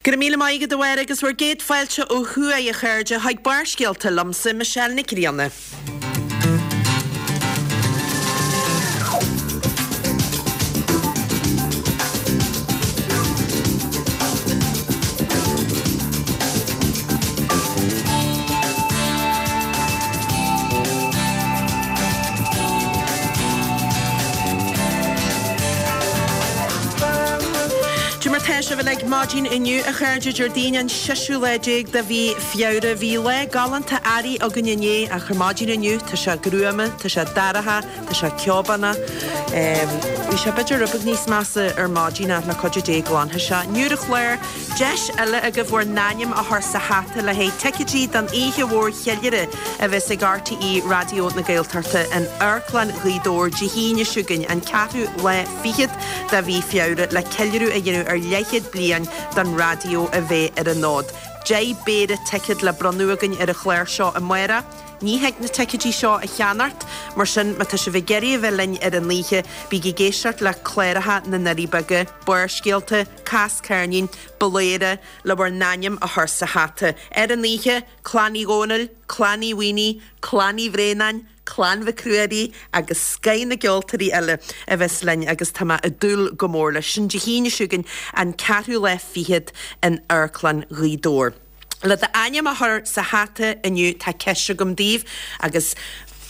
Go raibh míle maith agat a Mháire agus bhur gcéad fáilte ó thuaidh a chairde chuig Barrscéalta liomsa, Michelle Nic Grianna. Cad é mar tá sibh uilig maidin inniu, a chairde, Déardaoin an seisiú lá déag de mhí Feabhra. Bhí lá galánta earraigh againn inné ach ar maidin inniu tá sé gruama, tá sé dorcha, tá sé ceobánach. Bhí sé b'fhéidir rud beag níos measa ar maidin ach le cuidiú Dé glanfaidh sé. Inniu ar an chlár, deis eile agaibh bhur n-ainm a chur sa hata le haghaidh ticéidí don oíche mhór cheiliúradh a bheas ag RTÉ Raidió na Gaeltachta in Amharclann Ghaoth Dobhair Dé hAoine seo chugainn, an ceathrú lá fichead de mhí Feabhra, le ceiliúradh a dhéanamh ar leathchéad bliain don raidió a bheith ar an fhód. 10 bpéire ticéad le bronnadh againn ar an chlár seo amárach. Ní thig na ticéidí seo a cheannacht, mar sin má tá sibh ag iarraidh a bheith linn ar an oíche, bígí ag éisteacht le cláracha na nDoirí Beaga, Barrscéalta, Cas Ceirnín, Bladhaire, le bhur n-ainm a chur sa hata. Ar an oíche, Clann Uí Dhónaill, Clann Uí Mhaonaigh, Clann Uí Bhraonáin, Clann Mhic Ruairí agus scoith na gceoltóirí eile a bheas linn agus tá mé ag dúil go mór leis. Sin Dé hAoine seo chugainn, an ceathrú lá fichead in Amharclann Ghaoth Dobhair. Le d'ainm a chur sa hata inniu tá ceist agam daoibh agus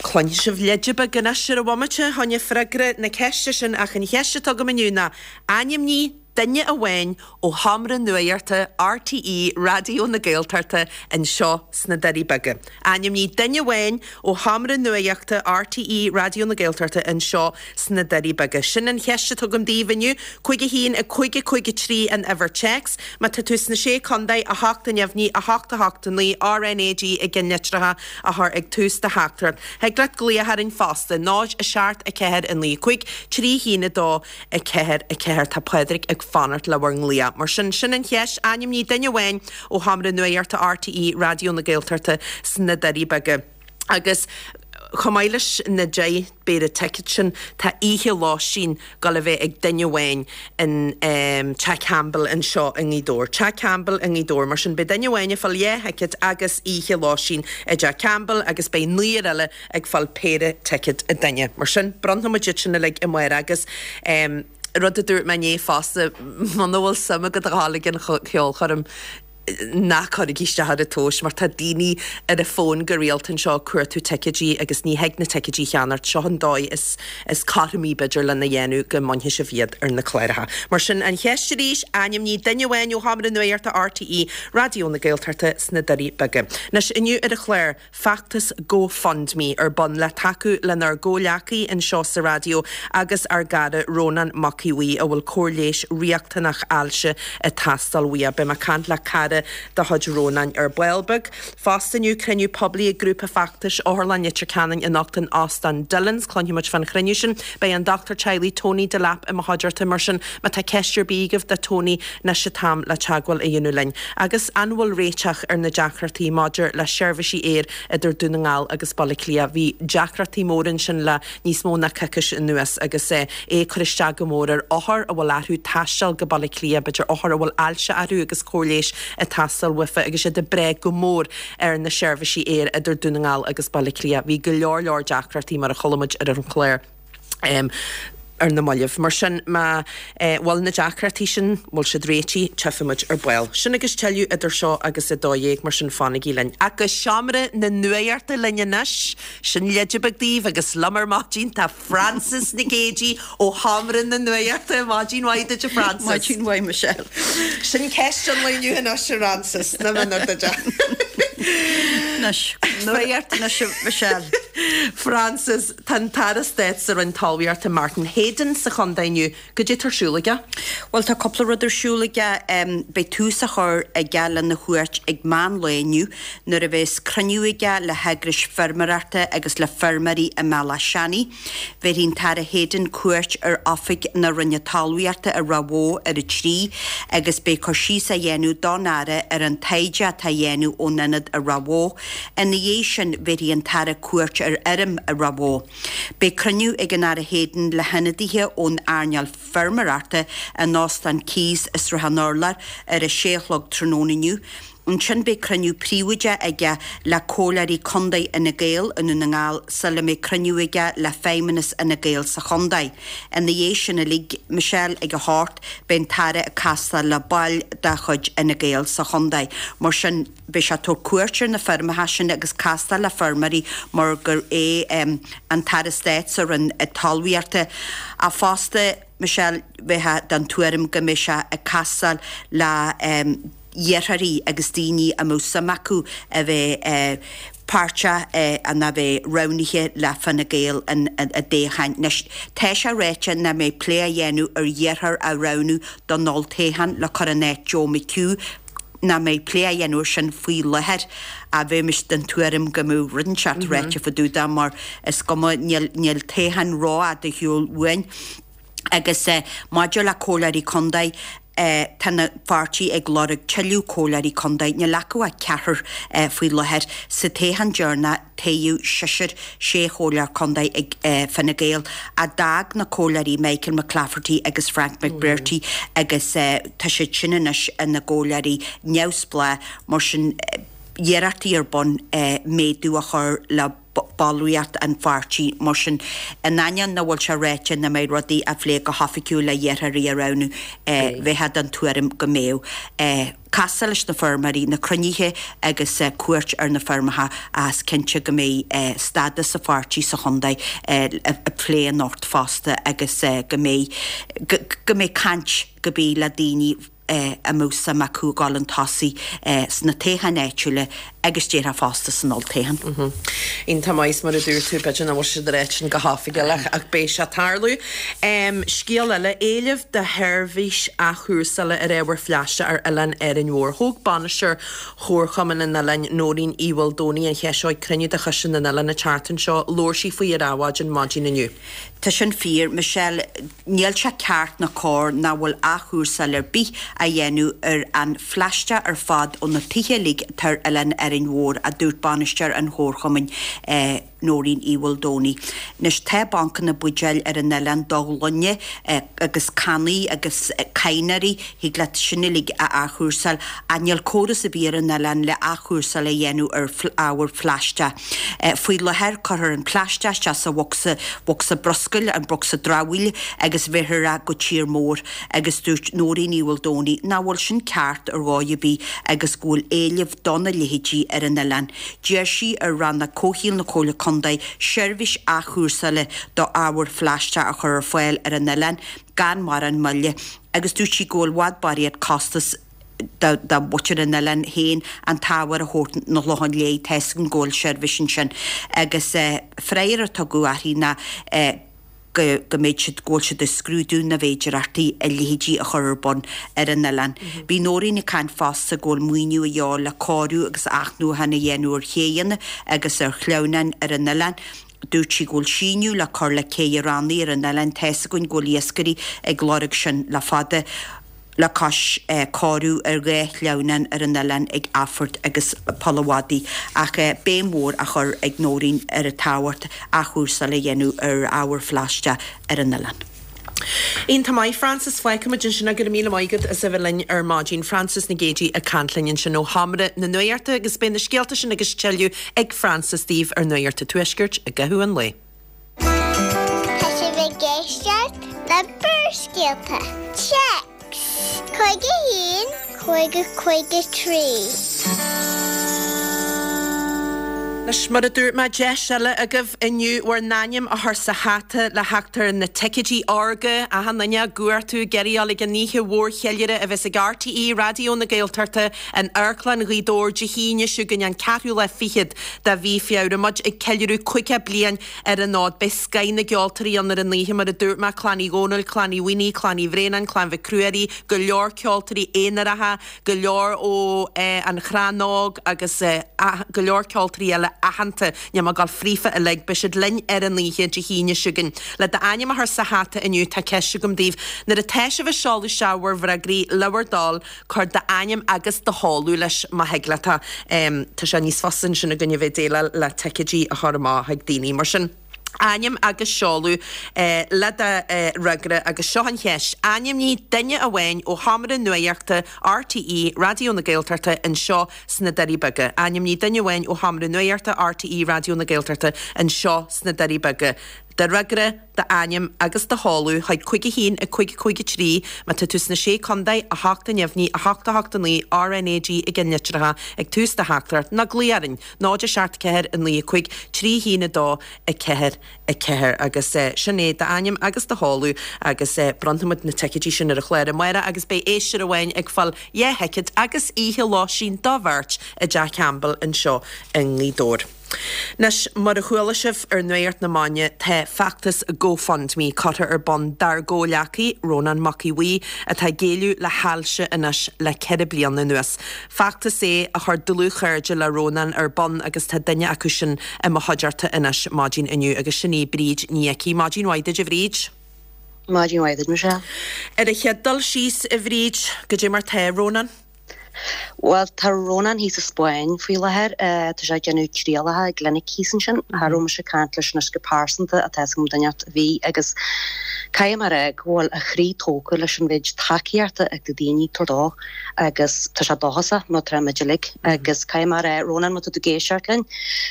cluinfidh sibh leide beag anois ar an bhomaite fá choinne freagra na ceiste sin ach an cheist atá agam inniu ná ainmnigh duine amháin ó Sheomra Nuachta RTÉ Raidió na Gaeltachta anseo sna Doirí Beaga. Ainmnigh duine amháin ó Sheomra Nuachta RTÉ Raidió na Gaeltachta anseo sna Doirí Beaga. Sin an cheist atá agam daoibh inniu. 5 1 5 5 3 an uimhir téacs. Má tá tú sna Sé Contae, 8 neamhní, 8 8 9 RNAG i gceannlitreacha a chur ag tús do theachtaireacht. Thig leat glaoch orainn fosta, 0 7 4 9 5 3 1 2 4, 4, Tá Pádraig ag fanacht le bhur nglaoch. Mar sin, sin an cheist, ainmnigh duine amháin ó Sheomra Nuachta RTÉ Raidió na Gaeltachta sna Doirí Beaga. Agus chomh maith leis na 10 bpéire ticéad sin, tá oíche lóistín ag dul a bheith ag duine amháin in Teach Campbell anseo i nGaoth Dobhair. Teach Campbell i nGaoth Dobhair. Mar sin, beidh duine amháin ag fáil dhá thicéad agus oíche lóistín i dTeach Campbell agus beidh naonúr eile ag fáil péire ticéad an duine. Mar sin, bronnfaidh muid iad sin uilig amárach agus rud a dúirt mé inné fosta, muna bhfuil suim agat a ghabháil ag an cheolchoirm, ná cuirigí isteach ar an tomhas mar tá daoine ar an bhfón go rialta anseo ag cuartú ticéidí agus ní thig na ticéidí a cheannacht. Seo an dóigh is is cothromaí b'fhéidir lena dhéanamh go mbainfidh sibh iad ar na cláracha. Mar sin, an cheist arís, ainmnigh duine amháin ó Sheomra Nuachta RTÉ Raidió na Gaeltachta sna Doirí Beaga. Anois, inniu ar an chlár, feachtas GoFundMe ar bun le tacú lenár gcomhghleacaí anseo sa raidió agus ár gcara Rónán Mac Aodha Bhuí a bhfuil cóir leighis riachtanach ailse ag teastáil uaidh. Beidh mé ag caint le cara de chuid Rónáin ar ball beag. Fosta inniu, cruinniú poiblí ag grúpa feachtais Otharlann Leitir Ceanainn anocht in Óstán Dillon's. Cluinfidh muid fán chruinniú sin. Beidh an dochtúir teaghlaigh Tony Delap i mo chuideachta mar sin má tá ceist ar bith agaibh do Tony anois an t-am le teagmháil a dhéanamh linn. Agus an bhfuil réiteach ar na deacrachtaí maidir le seirbhísí aeir idir Dún na nGall agus Baile Átha Cliath? Bhí deacrachtaí móra ansin le níos mó ná coicís anuas agus é ag cur isteach go mór ar othair a bhfuil orthu taisteal go Baile Átha Cliath, b'fhéidir othair a bhfuil ailse orthu agus cóir leighis ag teastáil uafa agus iad ag brath go mór ar na seirbhísí aeir idir Dún na nGall agus Baile Átha Cliath. Bhí go leor leor deacrachtaí mar a chuala muid ar an chlár. ar na mallaibh. Mar sin, má bhfuil na deacrachtaí sin, bhfuil siad réitithe, tchífidh muid ar ball. Sin agus tuilleadh idir seo agus 12, mar sin fanaigí linn. Ach go seomra na nuachta linn anois, sin leide beag daoibh agus liom ar maidin tá Frances Nic Géadaigh ó sheomra na nuachta. Maidin mhaith duit a Frances. Maidin mhaith Michelle. Sin ceist an lae inniu anois a Fhrances, na mionar duit. Anois, nuacht anois a Michelle. Frances, Tá an tAire Stáit sa Roinn Talmhaíochta Martin Heydon sa chontae inniu. Goidé tá ar siúl aige? Bhuel, tá cúpla rud ar siúl aige. Beidh tús á chur aige lena chuairt ag meán lae inniu nuair a bheas cruinniú aige le heagrais feirmeoireachta agus le feirmeoirí i mBealach Seanaidh. Bhéarfaidh an tAire Heydon cuairt ar oifig na Roinne Talmhaíochta i Ráth Bhoth ar a 3 agus beidh cur síos á dhéanamh don Aire ar an taighde atá á dhéanamh ón ionad i Ráth Bhoth. Ina dhiaidh sin, bhéarfaidh an tAire cuairt ar. ar fheirm i Ráth Bhoth. Beidh cruinniú ag an Aire Heydon le hionadaithe ón earnáil feirmeoireachta in Óstán Keys i Srath an Urláir ar a sé a chlog tráthnóna inniu. Ansin beidh cruinniú príobháideach aige le Comhairleoirí Contae Fhine Gael i nDún na nGall sula mbeidh cruinniú aige le Feidhmeannas Fhine Gael sa chontae. Ina dhiaidh sin uilig, Michelle, ag a hocht, beidh an tAire ag castáil le baill de chuid Fhine Gael sa chontae. Mar sin, beidh sé ag tabhairt cuairt ar na feirmeacha sin agus castáil le feirmeoirí mar gur é an tAire Stáit sa Roinn Talmhaíochta ach fosta, Michelle, bheifeá den tuairim go mbeidh sé ag castáil le hiarrthóirí agus daoine a mbeadh suim acu a bheith páirteach nó a bheith roghnaithe le Fine Gael i dtoghcháin. Anois, tá sé ráite nach mbeidh plé á dhéanamh ar iarrthóir a roghnú don olltoghchán le cur in áit Joe McHugh, nach mbeidh plé á dhéanamh ar sin faoi láthair ach bheimis den tuairim go mbeadh rud inteacht ráite fá dtaobh de mar is cuma, níl toghchán rófhada ar shiúl uainn. Agus maidir le comhairleoirí contae, tá an pháirtí ag lorg tuilleadh comhairleoirí contae. Níl acu ach ceathrar faoi láthair. Sa toghchán deireanach, toghadh seisear, sé chomhairleoir contae ag Fine Gael, ach d'fhág na comhairleoirí Michael McClafferty agus Frank McBrearty agus tá siad sin anois ina gcomhairleoirí neamhspleách. Mar sin, iarrachtaí ar bun méadú a chur le. ballraíocht an pháirtí. Mar sin, in ainneoin nach bhfuil sé ráite nach mbeidh rudaí á phlé go hoifigiúil le hiarrthóirí a roghnú, bheifeá den tuairim go mbeadh. Castáil leis na feirmeoirí, na cruinnithe agus cuairt ar na feirmeacha ach is cinnte go mbeidh stádas an pháirtí sa chontae á phlé anocht fosta agus go mbeidh go mbeidh caint go bith le daoine a mbeadh suim acu a ghabháil chun tosaigh sna toghcháin áitiúla agus déarfá fosta san olltoghchán. Iontach maith, mar a dúirt tú, b'fhéidir nach bhfuil siad ag ráit sin go hoifigiúil ach beidh sé ag tarlú. Scéal eile, éileamh do sheirbhís athchúrsála ar ábhar phlaisteach ar oileán Árainn Mhór. Thóg bainisteoir Chomharchumann an oileáin, Nóirín Uí Mhaoldomhnaigh, an cheist seo ag cruinniú de Choiste na nOileán an tseachtain seo. Labhair sí faoi ar Adhmhaidin maidin inniu. Tá sin fíor, Michelle. Níl sé ceart ná cóir nach bhfuil athchúrsáil ar bith á dhéanamh ar an phlaisteach ar fad ó na tithe uilig atá ar oileán Árainn Mhór, a dúirt bainisteoir an chomharchumainn, Nóirín Uí Mhaoldomhnaigh. Anois tá bancanna buidéil ar an oileán do ghloine agus cannaí agus cadhnóirí, thig leat sin uilig a athchúrsáil ach níl córas ar bith ar an oileán le athchúrsáil a dhéanamh ar ábhar phlaisteach. Faoi láthair, cuirtear an plaisteach isteach sa bhocsa, bhocsa bruscair, an bocsa dramhaíl, agus bheirthear é go tír mór. Agus dúirt Nóirín Uí Mhaoldomhnaigh nach bhfuil sin ceart ar dhóigh ar bith agus go bhfuil éileamh dona leithéidí ar an oileán. D'iarr sí ar Rannóg Comhshaoil na Comhairle Contae seirbhís athchúrsála do ábhar phlaisteach a chur ar fáil ar an oileán gan mórán moille agus dúirt sí go bhfuil i bhfad barraíocht costas do mhuintir an oileáin féin an t-ábhar a thabhairt 'na Chlocháin Léith, tá 'fhios agam go bhfuil seirbhís ansin. Agus freagra a tugadh uirthi ná go go mbeidh siad, go bhfuil siad ag scrúdú na bhféidearthachtaí a leithéidí a chur ar bun ar an oileán. Bhí Nóirín ag caint fosta go bhfuil maoiniú a dhíobháil le cóiriú agus athnuachan a dhéanamh ar chéidheanna agus ar shleamhnáin ar an oileán. Dúirt sí go bhfuil síneadh le cur le cé Rannaigh ar an oileán, tá 'fhios againn go bhfuil iascairí ag lorg sin le fada. le cois cóiriú ar dha shleamhnán ar an oileán ag Athphort agus Poll a' Mhadaidh, ach béim mhór á chur ag Nóirín ar an tábhacht athchúrsáil a dhéanamh ar ábhar phlaisteach ar an oileán. Iontach maith, Frances. Fágfaimid ansin é. Go raibh míle maith agat as a bheith linn ar maidin. Frances Nic Géadaigh ag caint linn ansin ó Sheomra na Nuachta agus beidh na scéalta sin agus tuilleadh ag Frances daoibh ar Nuacht an Tuaiscirt i gcaitheamh an lae. Tá sibh ag éisteacht le Barrscéalta. Téacs 51 50 53. Anois, mar a dúirt mé, deis eile agaibh inniu bhur n-ainm a chur sa hata le theacht ar na ticéidí órga, achan duine á gcuartú, ag iarraidh a dhul ag an oíche mhór cheiliúradh a bheas ag RTÉ Raidió na Gaeltachta in Amharclann Ghaoth Dobhair Dé hAoine seo chugainn an ceathrú lá fichead de mhí Feabhra. Muid ag ceiliúradh 50 bliain ar an fhód. Beidh scoith na gceoltóirí ann ar an oíche, mar a dúirt mé, Clann Uí Dhónaill, Clann Uí Mhaonaigh, Clann Uí Bhraonáin, Clann Mhic Ruairí, go leor ceoltóirí aonaracha, go leor ó An Crann Óg agus go leor ceoltóirí eile. aitheanta, níl mé ag dul fríofa uilig, beidh siad linn ar an oíche Dé hAoine seo chugainn. Le d'ainm a chur sa hata inniu, tá ceist agam daoibh. Nuair atá sibh ag seoladh isteach bhur bhfreagraí, le bhur dtoil, cuir d'ainm agus do sheoladh leis má thig leat. Tá sé níos fusa ansin againn a bheith ag déileáil le ticéidí a chur amach chuig daoine. Mar sin, ainm agus seoladh le do fhreagra agus seo an cheist, ainmnigh duine amháin ó sheomra nuaíochta RTÉ Raidió na Gaeltachta anseo sna Doirí Beaga. Ainmnigh duine amháin ó sheomra nuaíochta RTÉ Raidió na Gaeltachta anseo sna Doirí Beaga. Do fhreagra, d'ainm agus do sheoladh chuig 5 1 5 5 3 má tá tú sna Sé Contae, 8 a neamhní, 8 8 9, RnaG i gceannlitreacha ag tús do theachtaireacht, nó glaoigh orainn, 0 7 4 9 5 3 1 2 4 4 agus sin é d'ainm agus do sheoladh agus bronnfaimid na ticéidí sin ar an chlár amárach agus beidh éisteoir amháin ag fáil dhá thicéad agus oíche lóistín do bheirt i dTeach Campbell anseo i nGaoth Dobhair. Anois, mar a chuala sibh ar Nuacht na Maidine, tá feachtas GoFundMe curtha ar bun dár gcomhghleacaí, Rónán Mac Aodha Bhuí, atá ag géilleadh le hailse anois le 4 bliana anuas. Feachtas é a chuir dlúthchairde le Rónán ar bun agus tá duine acu sin i mo chuideachta anois maidin inniu agus sin í Bríd Ní Icí. Maidin mhaith duit a Bhríd. Maidin mhaith duit, Michelle. Ar an chéad dul síos, a Bhríd, goidé mar tá Rónán? Bhuel, tá Rónán thíos sa Spáinn faoi láthair. Tá sé ag déanamh trialacha i gclinic thíos ansin. Cha raibh mise ag caint leis anois go pearsanta ach tá 'fhios agam duine inteacht a bhí agus caithfidh mé a rá go bhfuil a chroí tógtha leis an mhéid tacaíochta atá daoine ag tabhairt dó agus tá sé dóchasach mar atá muid uilig agus caithfidh mé a rá, Rónán, má tá tú ag éisteacht linn,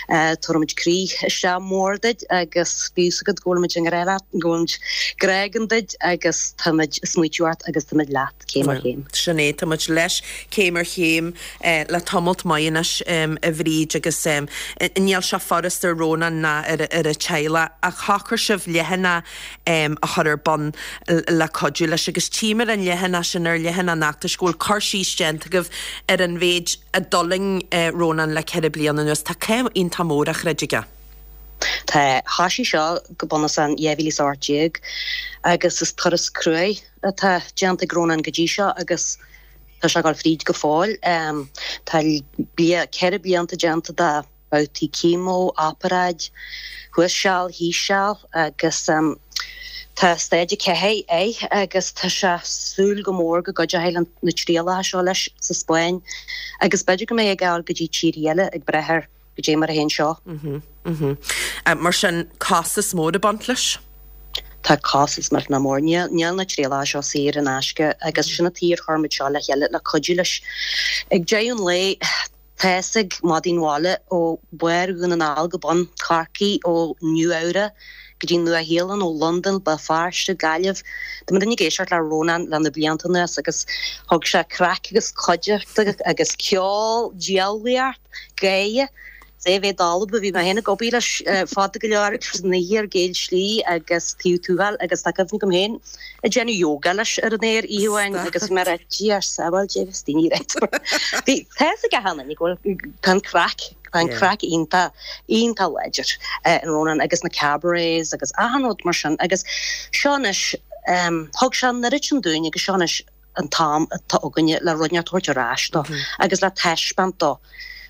tabharfaimid croí isteach mór duit agus bíodh 'fhios agat go bhfuilimid i ngrá leat, go bhfuilimid grá againn duit agus táimid ag smaoitiú ort agus táimid leat. céim ar chéim. Sin é, tá muid leis céim ar chéim le tamalt maith anois, a Bhríd, agus níl sé furast ar Rónán ná ar a teaghlach ach shocraigh sibh leathanach a chur ar bun le cuidiú leis agus tchím ar an leathanach sin, ar leathanach an fheachtais, go bhfuil cur síos déanta agaibh ar an mhéid a d'fhulaing Rónán le 4 bliana anuas. Tá cath iontach mór á throid aige. Tá. Thoisigh seo go bunúsach in 2018 agus is turas cruaidh atá déanta ag Rónán go dtí seo agus tá sé ag dul fríd go fóill. Tá 4 blianta déanta de bhabhtaí chemo, oparáid, thuas seal, thíos seal agus tá staid 4 air agus tá sé ag súil go mór go gcuideoidh na trialacha seo leis sa Spáinn agus b'fhéidir go mbeidh ag gabháil go dtí tíortha eile ag brath ar goidé mar a théann seo. Mar sin, costas mór ag baint leis? Tá costas millteanach mór. Níl na trialacha seo saor in aisce agus sin an tuige ar chuir muid seo le chéile le cuidiú leis. Ag deireadh an lae, tá fhios ag madaí an bhaile ó bharr Dhún na nGall go bun Chorcaí, ó Nua Eabhrac go dtí Nua Shéalainn, ó Londain, Béal Feirste, Gaillimh. Tá muidinne ag éisteacht le Rónán le na blianta anuas agus thug sé craic agus cuideachta agus ceol, diabhlaíocht, gáire. Is é a bheith dalba, bhí mé féin ag obair leis fada go leor agus san oíche ar Gael Slí agus taobh Tuathail agus tá cuimhne agam féin ag déanamh yoga leis ar an aer oíche amháin agus bhí mé ag rá Dia ár sábháil Dé bhí daoine ag rá Bhí tá fhios ag achan duine go bhfuil tá an craic tá an craic iontach iontach láidir in Rónán agus na cabarets agus achan rud mar sin agus seo anois thug sé an oiread sin dúinn agus seo anois an t-am atá againne le rud inteacht a thabhairt ar ais dó agus le taispeáint dó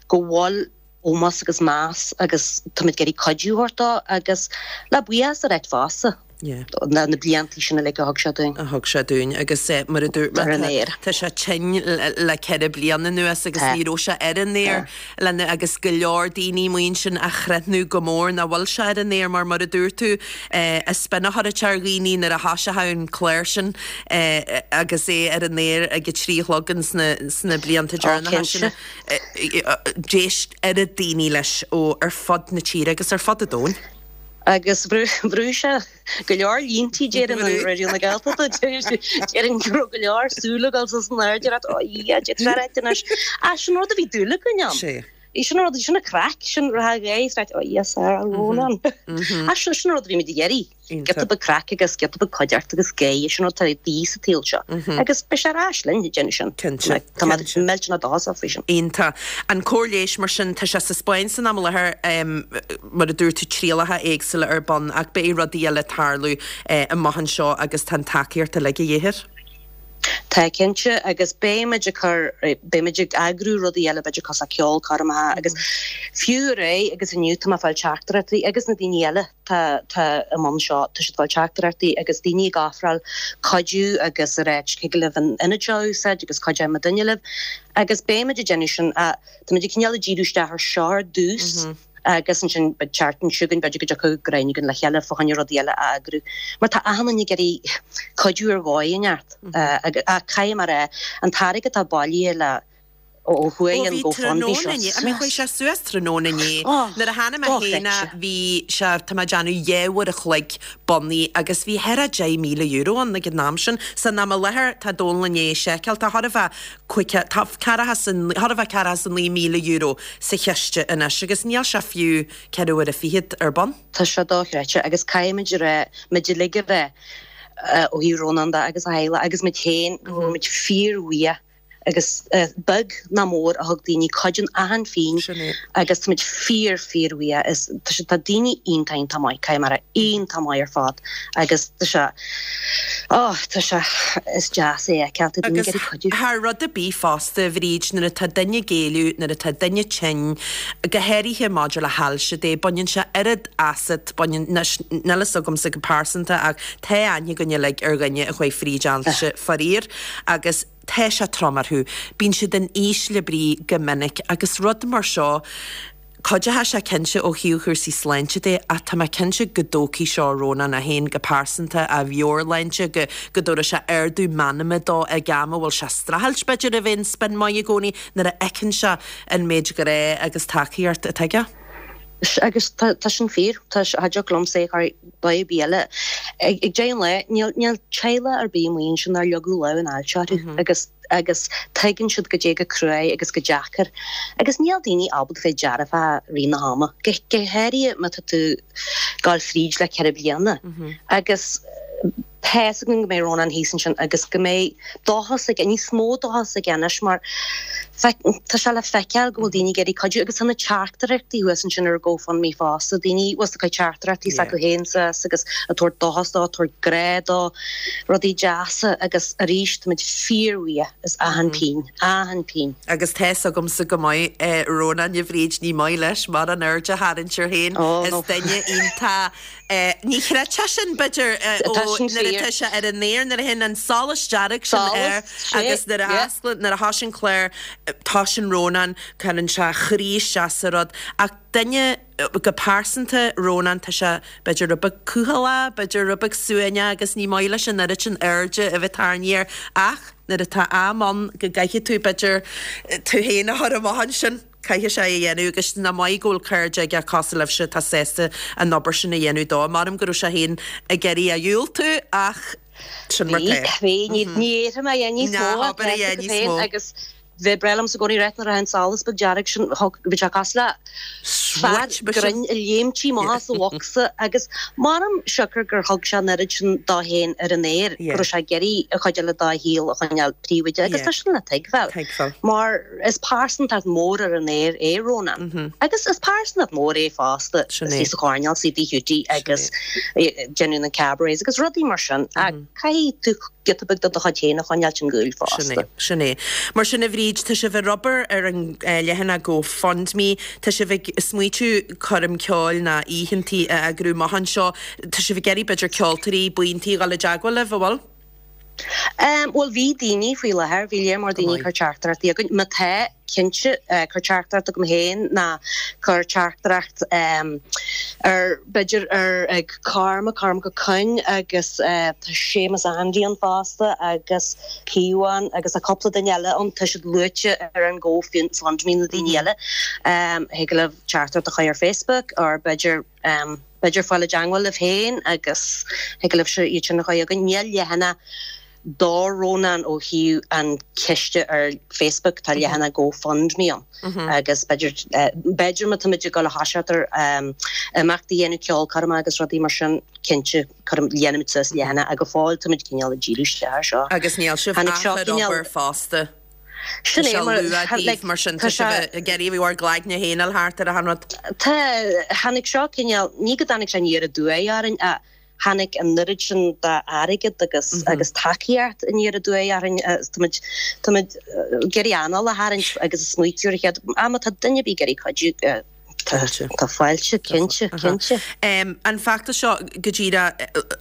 go bhfuil ómós agus meas agus táimid ag iarraidh cuidiú a thabhairt dó agus le buíochas a ráit fosta na blianta sin uilig a thug sé dúinn. a thug sé dúinn agus mar a dúirt mé tá sé tinn le 4 bliana anuas agus ní raibh sé ar an aer lena agus go leor daoine maíonn sin a chreathnú go mór nach bhfuil sé ar an aer mar mar a dúirt tú is spin a chuirfeadh sé ar dhaoine nuair a thoiseochadh an clár sin agus é ar an aer ag a 3 a chlog ins na blianta deireanacha sin. D'éist oiread daoine leis ó ar fud na tíre agus ar fud an domhain. Agus bhrúigh sé go leor líntí déarfainn ar Raidió na Gaeltachta. Déarfainn go raibh go leor súl ag dul suas in airde ag rá, Ó a Dhia, d'fhéadfadh sé a ráit anois. Ach sin rud a bhí dúil againn ann. Sin rud, sin an craic, sin rá ghaoth, right, oh yes, Sarah Rónán. Ach sin sin rud a bhí muid ag iarraidh. Giota beag craic agus giota beag cuideachta agus gáire, sin rud atá de dhíth sa tsaol seo. Agus beidh sé ar ais linn ag déanamh sin. Cinnte. Tá mé millteanach dóchasach faoi sin. Iontach. An cóir leighis mar sin, tá sé sa Spáinn san am i láthair, mar a dúirt tú, trialacha éagsúla ar bun ach beidh rudaí eile ag tarlú amach anseo agus tá an tacaíocht uilig de dhíth air. Tá cinnte, agus beimid ag cur, beimid ag eagrú rudaí eile b'fhéidir cosúil le ceolchoirmeacha agus fiú aréir agus inniu tá mé ag fáil teachtaireachtaí agus na daoine eile tá tá i mbun seo, tá siad ag fáil teachtaireachtaí agus daoine ag ofráil cuidiú agus ag ráit thig libh an ionad seo a úsáid agus cuideoidh muidinne libh agus beimid ag déanamh sin ach táimid ag cineál ag díriú isteach ar seo ar dtús. Agus ansin an tseachtain seo chugainn, b'fhéidir go dtiocfadh greim againn le chéile fá choinne rudaí eile a eagrú. Mar tá achan duine ag iarraidh cuidiú ar dhóigh inteacht. Ach caithfidh mé a rá, an t-airgead atá bailithe le ó Ó chuaigh an bhí GoFundMe tráthnóna seo inné, I mean chuaigh sé suas tráthnóna inné. Nuair a tháinig mé féin bhí sé, tá mé ag déanamh 2 uair a chloig bunaithe agus bhí thar a €10,000 ann ag an am sin. San am i láthair tá Dónal i ndiaidh seiceáil, tá chóir a bheith cúig, tá ceathracha 's a, chóir a bheith ceathracha 's a €9,000 sa chiste anois agus níl sé fiú ceithre uaire fichead ar bun. Tá sé dochreidte agus caithfimid a rá, muid uilig a rá, ó thaobh Rónán de agus a theaghlach agus muid féin, go bhfuil muid fíorbhuíoch agus beag ná mór a thug daoine cuid in achan phingin Sin é. agus táimid fíor fíorbhuíoch. Is tá sé tá daoine iontach iontach maith, caithfidh mé a rá, iontach maith ar fad agus tá sé oh tá sé is deas é a fheiceáil, tá daoine ag Agus iarraidh cuidiú. thar rud ar bith fosta, a Bhríd, nuair atá duine ag éalú, nuair atá duine tinn, go háirithe maidir le hailse de, baineann sé oiread asat, baineann, anois níl fhios agamsa go pearsanta ach tá aithne againn uilig ar dhuine a chuaigh fríd ailse, faraor, agus tá sé trom orthu. Bíonn siad in ísle brí go minic agus rud mar seo, cuideoidh sé cinnte ó thaobh chúrsaí sláinte de ach tá mé cinnte go dtógfaidh seo Rónán é féin go pearsanta, a mheabhairshláinte, go go dtabharfaidh sé ardú meanma dó ag am a bhfuil sé ag streachailt b'fhéidir a bheith in spin maith i gcónaí nuair a fheiceann sé an méid grá agus tacaíocht atá aige. Agus tá sin fíor. Tá cha dtiocfadh liomsa é a chur ar dhóigh ar bith eile. Ag deireadh an lae, níl níl teaghlach ar bith amuigh ansin nár leagadh lámh an ailse orthu agus agus tuigeann siad goidé chomh cruaidh agus chomh deacair. Agus níl daoine ábalta bheith dearfach i rith na hama, go go háirithe má tá tú ag gabháil fríd le 4 bliana. Agus tá fhios againn go mbeidh Rónán thíos ansin agus go mbeidh dóchas aige, níos mó dóchas aige anois mar tá sé le feiceáil go bhfuil daoine ag iarraidh cuidiú agus tá na teachtaireachtaí thuas ansin ar GoFundMe fosta, daoine bhfuil ag cur teachtaireachtaí s'acu féin suas agus ag tabhairt dóchas dó, ag tabhairt grá dó, rudaí deasa agus arís táimid fíorbhuíoch as achan phingin, achan phingin. Agus tá fhios agamsa go maith Rónán, a Bhríd, ní maith leis mórán airde a tharraingt air féin, is duine iontach Ní chreidfeá sin, b'fhéidir, ó nuair atá sé ar an aer, nuair a théann an solas dearg sin air agus nuair a osclaíonn, nuair a thosaíonn an clár, tosaíonn Rónán, cuireann sé a chroí isteach sa rud. Ach duine, go pearsanta, Rónán, tá sé, b'fhéidir, rud beag cúthaileach, b'fhéidir rud beag suaimhneach agus ní maith leis an oiread sin airde a bheith tarraingthe air. Ach nuair atá am ann go gcaithfidh tú, b'fhéidir, tú féin a chur amach ansin. Caithfidh sé é a dhéanamh agus nach maith go bhfuil cairde aige cosúil libhse atá sásta an obair sin a dhéanamh dó. Measaim go raibh sé féin ag iarraidh a dhiúltú ach sin mar tá. Bhí, bhí, ní fhéadfaidh mé a dhéanamh níos mó Ná habair a dhéanamh níos mó. agus bhí breá liomsa i gcónaí rá nuair a théann an solas beag dearg sin, bhí sé cosúil le fear grinn ag léimtí amach as an bhocsa agus measaim siocair gur thug sé an oiread sin dó féin ar an aer go raibh sé ag iarraidh an chuid eile dá shaol a choinneáil príobháideach agus tá sin le tuigbheáil mar Is pearsantacht mór ar an aer é Rónán. Agus is pearsantacht mór é fosta istigh sa choirnéal, sa Tigh Hiúdaí agus déanamh na cabarets agus rudaí mar sin. Ach caithfidh tú giota beag de do chuid féin a choinneáilt ón gcúl fosta. Sin é, sin é. Mar sin a Bhríd, tá sibh ag obair ar an leathanach GoFundMe, tá sibh ag smaoitiú coirm ceoil ná oícheantaí a eagrú amach anseo, tá sibh ag iarraidh b'fhéidir ceoltóirí, buíontaí a dhul i dteagmháil libh, an bhfuil? Bhuel, bhí daoine faoi láthair, bhí léar mór daoine ag cur teachtaireachtaí chugainn. Má tá, cinnte, cuir teachtaireacht chugam féin ná cuir teachtaireacht ar, b'fhéidir, ar ag Cormac, Cormac Ó Coinn agus tá Séamus Andy ann fosta agus Caomhán agus tá cúpla duine eile ann, tá siad luaite ar an GoFundMe na daoine eile. Thig libh teachtaireacht a chur ar Facebook or b'fhéidir, B'fhéidir fáil i dteangmháil libh féin agus thig libhse iad sin a chur chugainn. Níl leathanach do Rónán ó thaobh an chiste ar Facebook, tá leathanach GoFundMe ann agus b'fhéidir, b'fhéidir má táimid ag dul a thoiseacht ar imeachtaí a dhéanamh, ceolchoirmeacha agus rudaí mar sin, cinnte, cuirim, dhéanfaimid suas leathanach ach go fóill táimid cineál ag díriú isteach ar seo. Agus níl sibh Tháinig ach seo ar cineál. obair fosta. Sin Tá é sé mar, luath daoibh like, mar sin, tá tá sé. sibh ag iarraidh bhur gcloigne féin a fháil thart ar achan rud. Tá, tháinig seo cineál, ní go dtáinig sé aniar aduaidh orainn ach. Tháinig an oiread sin d'airgead agus agus tacaíocht aniar aduaidh orainn agus táimid táimid ag iarraidh anáil a tharraingt agus ag smaoitiú ar an chéad am má tá duine ar bith ag iarraidh cuidiú tá tá fáilte cinnte cinnte. An feachtas seo go díreach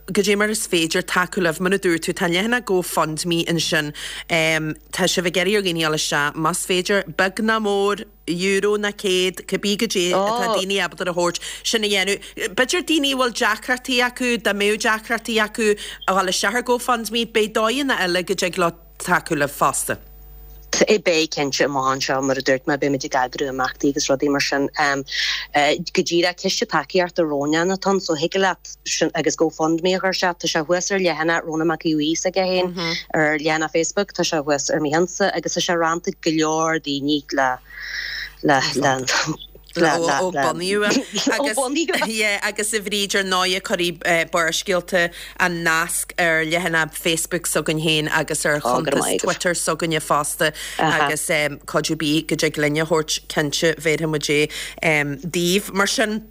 goidé mar is féidir tacú libh mar a dúirt tú tá an leathanach GoFundMe ansin tá sibh ag iarraidh ar dhaoine a dhul isteach más féidir beag ná mór euro ná 100, cibé goidé atá daoine ábalta a thabhairt, sin a dhéanamh. B'fhéidir daoine a bhfuil deacrachtaí acu, dá mbeadh deacrachtaí acu a dhul isteach ar GoFundMe, beidh dóigheanna eile go dtig leo tacú libh fosta. Beidh, cinnte, amach anseo, mar a dúirt mé, beimid ag eagrú imeachtaí agus rudaí mar sin. Go díreach, ciste tacaíochta Rónán atá ann, so thig leat sin agus GoFundMe a chur isteach. Tá sé thuas ar leathanach Rónán Mac Aodha Bhuí s'aige féin ar leathanach Facebook, tá sé thuas ar mo cheannsa agus tá sé roinnte ag go leor daoine le le le le le ó bunaíodh é. Agus yeah agus a Bhríd ar ndóighe cuirfidh Barrscéalta an nasc ar leathanach Facebook s'againn féin agus ar chuntas Twitter s'againne fosta agus cuidiú ar bith go dtig linn a thabhairt cinnte bhéarfaidh muid é daoibh. Mar sin.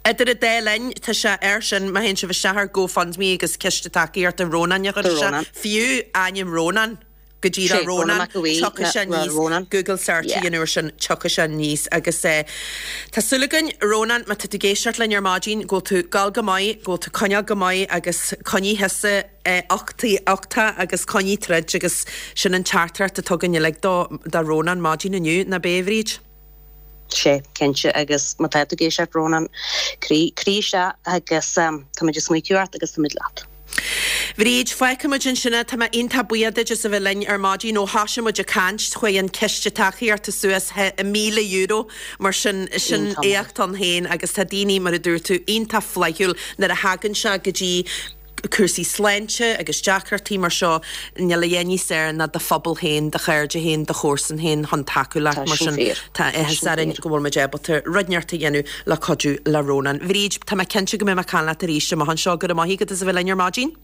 Idir an dá linn, tá sé air sin, má théann sibh isteach ar GoFundMe agus Ciste Tacaíochta Rónáin a chur isteach, fiú ainm Rónán, go díreach Rónán, tiocfaidh sé aníos, Google search a dhéanamh air sin, tiocfaidh sé aníos. Agus tá súil againn, Rónán, má tá tú ag éisteacht linn ar maidin, go bhfuil tú ag gabháil go maith, go bhfuil tú ag coinneáil go maith agus coinnigh thusa uchtach agus coinnigh troid agus sin an teachtaireacht atá againn uilig do Rónán maidin inniu, nach b'é, a Bhríd? Sea, cinnte, agus má tá tú ag éisteacht, Rónán, croí, croí isteach agus táimid ag smaoitiú ort agus táimid leat. Bhríd, fágfaidh muid ansin é. Tá mé iontach buíoch duit as a bheith linn ar maidin. Ó thoisigh muid ag caint, chuaigh an ciste tacaíochta suas €1,000, mar sin, sin éacht ann féin agus tá daoine, mar a dúirt tú, iontach flaithiúil nuair a thagann sé go dtí cúrsaí sláinte agus deacrachtaí mar seo, níl a dhath níos fearr ná do phobal féin, do chairde féin, do chomharsain féin chun tacú leat. Mar sin, tá áthas orainn go bhfuil muid ábalta rud inteacht a dhéanamh le cuidiú le Rónán. Bhríd, tá mé cinnte go mbeidh mé ag caint leat arís amach anseo. Go raibh maith agat as a bheith linn ar maidin.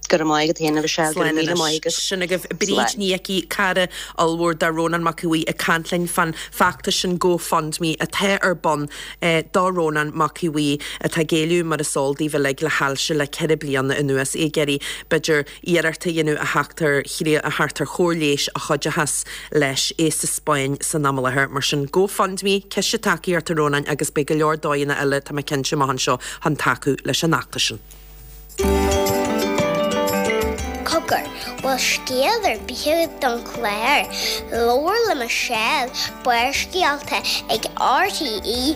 Go raibh maith agat féin, a Mhichelle. Go raibh míle maith agat. Sin agaibh Bríd Ní Icí, cara ollmhór de Rónán Mac Aodha Bhuí ag caint linn fán feachtas sin GoFundMe atá ar bun do Rónán Mac Aodha Bhuí atá ag éileamh mar is eol daoibh uilig le hailse le 4 bliana anuas, é ag iarraidh b'fhéidir iarracht a dhéanamh a theacht ar a theacht ar chóir leighis a chuideochas leis, é sa Spáinn san am i láthair. Mar sin GoFundMe, Ciste Tacaíochta Rónáin agus beidh go leor dóigheanna eile tá mé cinnte amach anseo chun tacú leis an fheachtas sin. Cogar, bhfuil scéal ar bith agat don chlár? Labhair le Michelle, Barrscéalta ag rte.ie.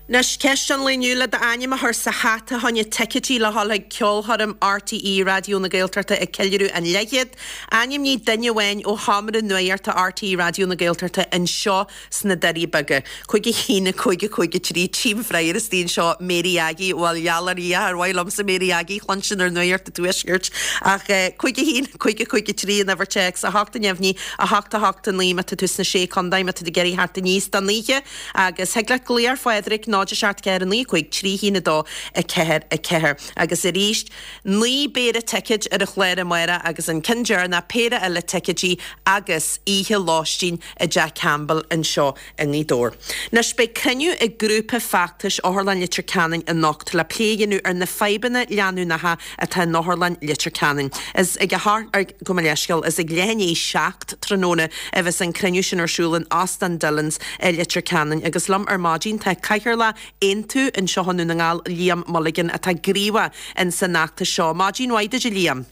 Anois, ceist an lae inniu, le d'ainm a chur sa hata fá choinne ticéidí le dhul chuig ceolchoirm RTÉ Raidió na Gaeltachta ag ceiliúradh an leathchéad. Ainmnigh duine amháin ó sheomra nuachta RTÉ Raidió na Gaeltachta anseo sna Doirí Beaga. 5 1 5 5 3 Tchím freagra istigh anseo Mary Aggie, bhuel gheall ar Dhia, ar mhaith liomsa Mary Aggie a chluinstin ar Nuacht an Tuaiscirt. Ach 5 1 5 5 3 an uimhir téacs, 8 neamhní, 8 8 9 má tá tú sna Sé Contae, má tá tú ag iarraidh theacht aníos don oíche agus thig leat glaoch ar Phádraig 0 7 4 9 5 3 1 2 4 4 agus arís 9 bpéire ticéid ar an chlár amárach agus an ceann deireanach péire eile ticéidí agus oíche lóistín i dTeach Campbell anseo i nGaoth Dobhair. Anois, beidh cruinniú ag grúpa feachtais Otharlann Leitir Ceanainn anocht le plé a dhéanamh ar na fadhbanna leanúnacha atá in Otharlann Leitir Ceanainn. Is ag a hocht, gabh mo leithscéal, is ag leath i ndiaidh 7 tráthnóna a bheas an cruinniú sin ar siúl in Óstán Dillons i Leitir Ceanainn agus liom ar maidin tá Cathaoirleach Aontú anseo i nDún na nGall, Liam Mulligan, atá gníomhach in san fheachtas seo. Maidin mhaith duit a Liam.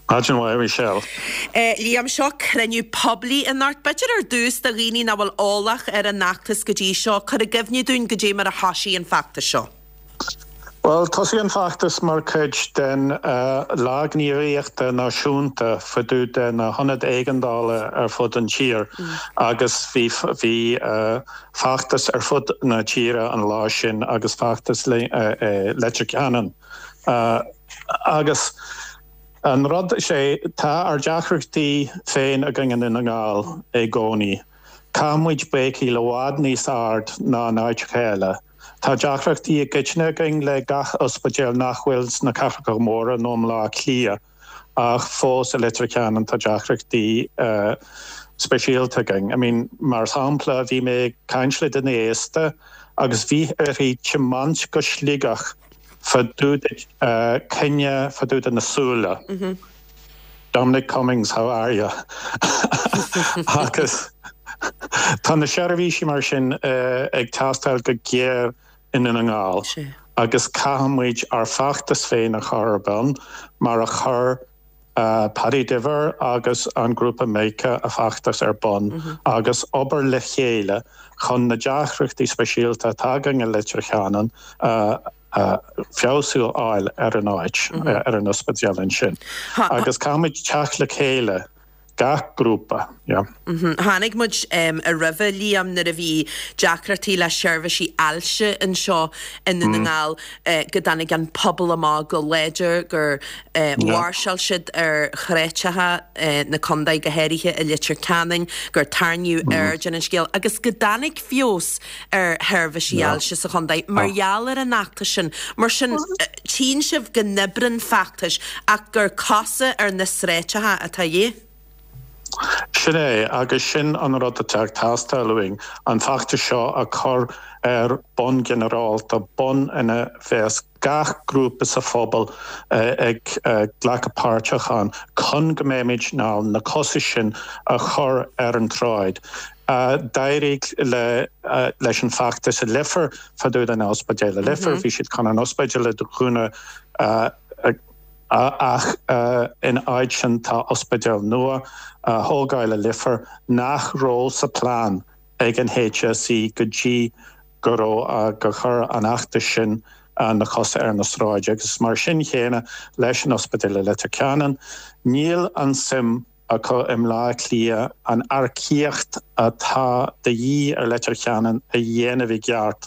Maidin mhaith, a Mhichelle. Liam, seo cruinniú poiblí anocht. B'fhéidir ar dtús do dhaoine nach bhfuil eolach ar an fheachtas go dtí seo, cuir i gcuimhne dúinn goidé mar a thoisigh an feachtas seo. Bhuel, thosaigh an feachtas mar chuid den Lá Gníomhaíochta Náisiúnta fá dtaobh de na hionaid éigeandála ar fud an tír agus bhí bhí feachtas ar fud na tíre an lá sin agus feachtas Leitir Ceanainn. Agus an rud, is é, tá ár deacrachtaí féin againn i nDún na nGall i gcónaí. Caithfidh muid béicíl i bhfad níos ard ná in áiteacha eile. Tá deacrachtaí i gcoitinne againn le gach ospidéal nach bhfuil sna cathracha móra nó i mBleá Cliath. Ach fós i Leitir Ceanainn tá deacrachtaí speisialta againn. I mean, mar shampla, bhí mé ag caint le duine aosta agus bhí uirthi tiomáint go Sligeach fá dtaobh de coinne fá dtaobh de na súile. Dominic Cummings, how are you? Agus tá na seirbhísí mar sin ag teastáil go géar i nDún na nGall agus caithfidh muid ár bhfeachtas féin a chur ar bun mar a chuir Paddy Diver agus an grúpa Macha a bhfeachtas ar bun agus obair le chéile chun na deacrachtaí speisialta atá againn i Leitir Ceanainn a feabhsú a fháil ar an áit, ar an ospidéal ansin. Agus caithfidh muid teacht le chéile gach grúpa, yeah. Chonaic muid roimhe, Liam, nuair a bhí deacrachtaí le seirbhísí ailse anseo i nDún na nGall, go dtáinig an pobal amach go láidir, gur mháirseáil siad ar shráideacha na contae, go háirithe i Leitir Ceanainn, gur tarraingíodh aird ar an scéal agus go dtáinig feabhas ar sheirbhísí ailse sa chontae mar gheall ar an fheachtas sin. Mar sin, Tchíonn sibh go n-oibríonn feachtais ach gur cosa ar na sráideacha atá de dhíth. Sin é, agus sin an rud atá ag teastáil uainn, an feachtas seo a chur ar bonn ginearálta, bonn ina bheas gach grúpa sa phobal ag glacadh páirteach ann chun go mbeimid in ann na cosa sin a chur ar an tsráid. D'éirigh leis an bhfeachtas i Leifear fá dtaobh den ospidéal i Leifear, bhí siad chun an ospidéal a dhúnadh ach in áit sin tá ospidéal nua á thógáil i Leifear nach raibh sa plean ag an HSE go dtí go raibh gur chuir an fheachtas sin na cosa ar na sráid agus mar sin chéanna leis an ospidéal i Leitir Ceanainn níl an suim acu i mBleá Cliath an earcaíocht atá de dhíth ar Leitir Ceanainn a dhéanamh i gceart,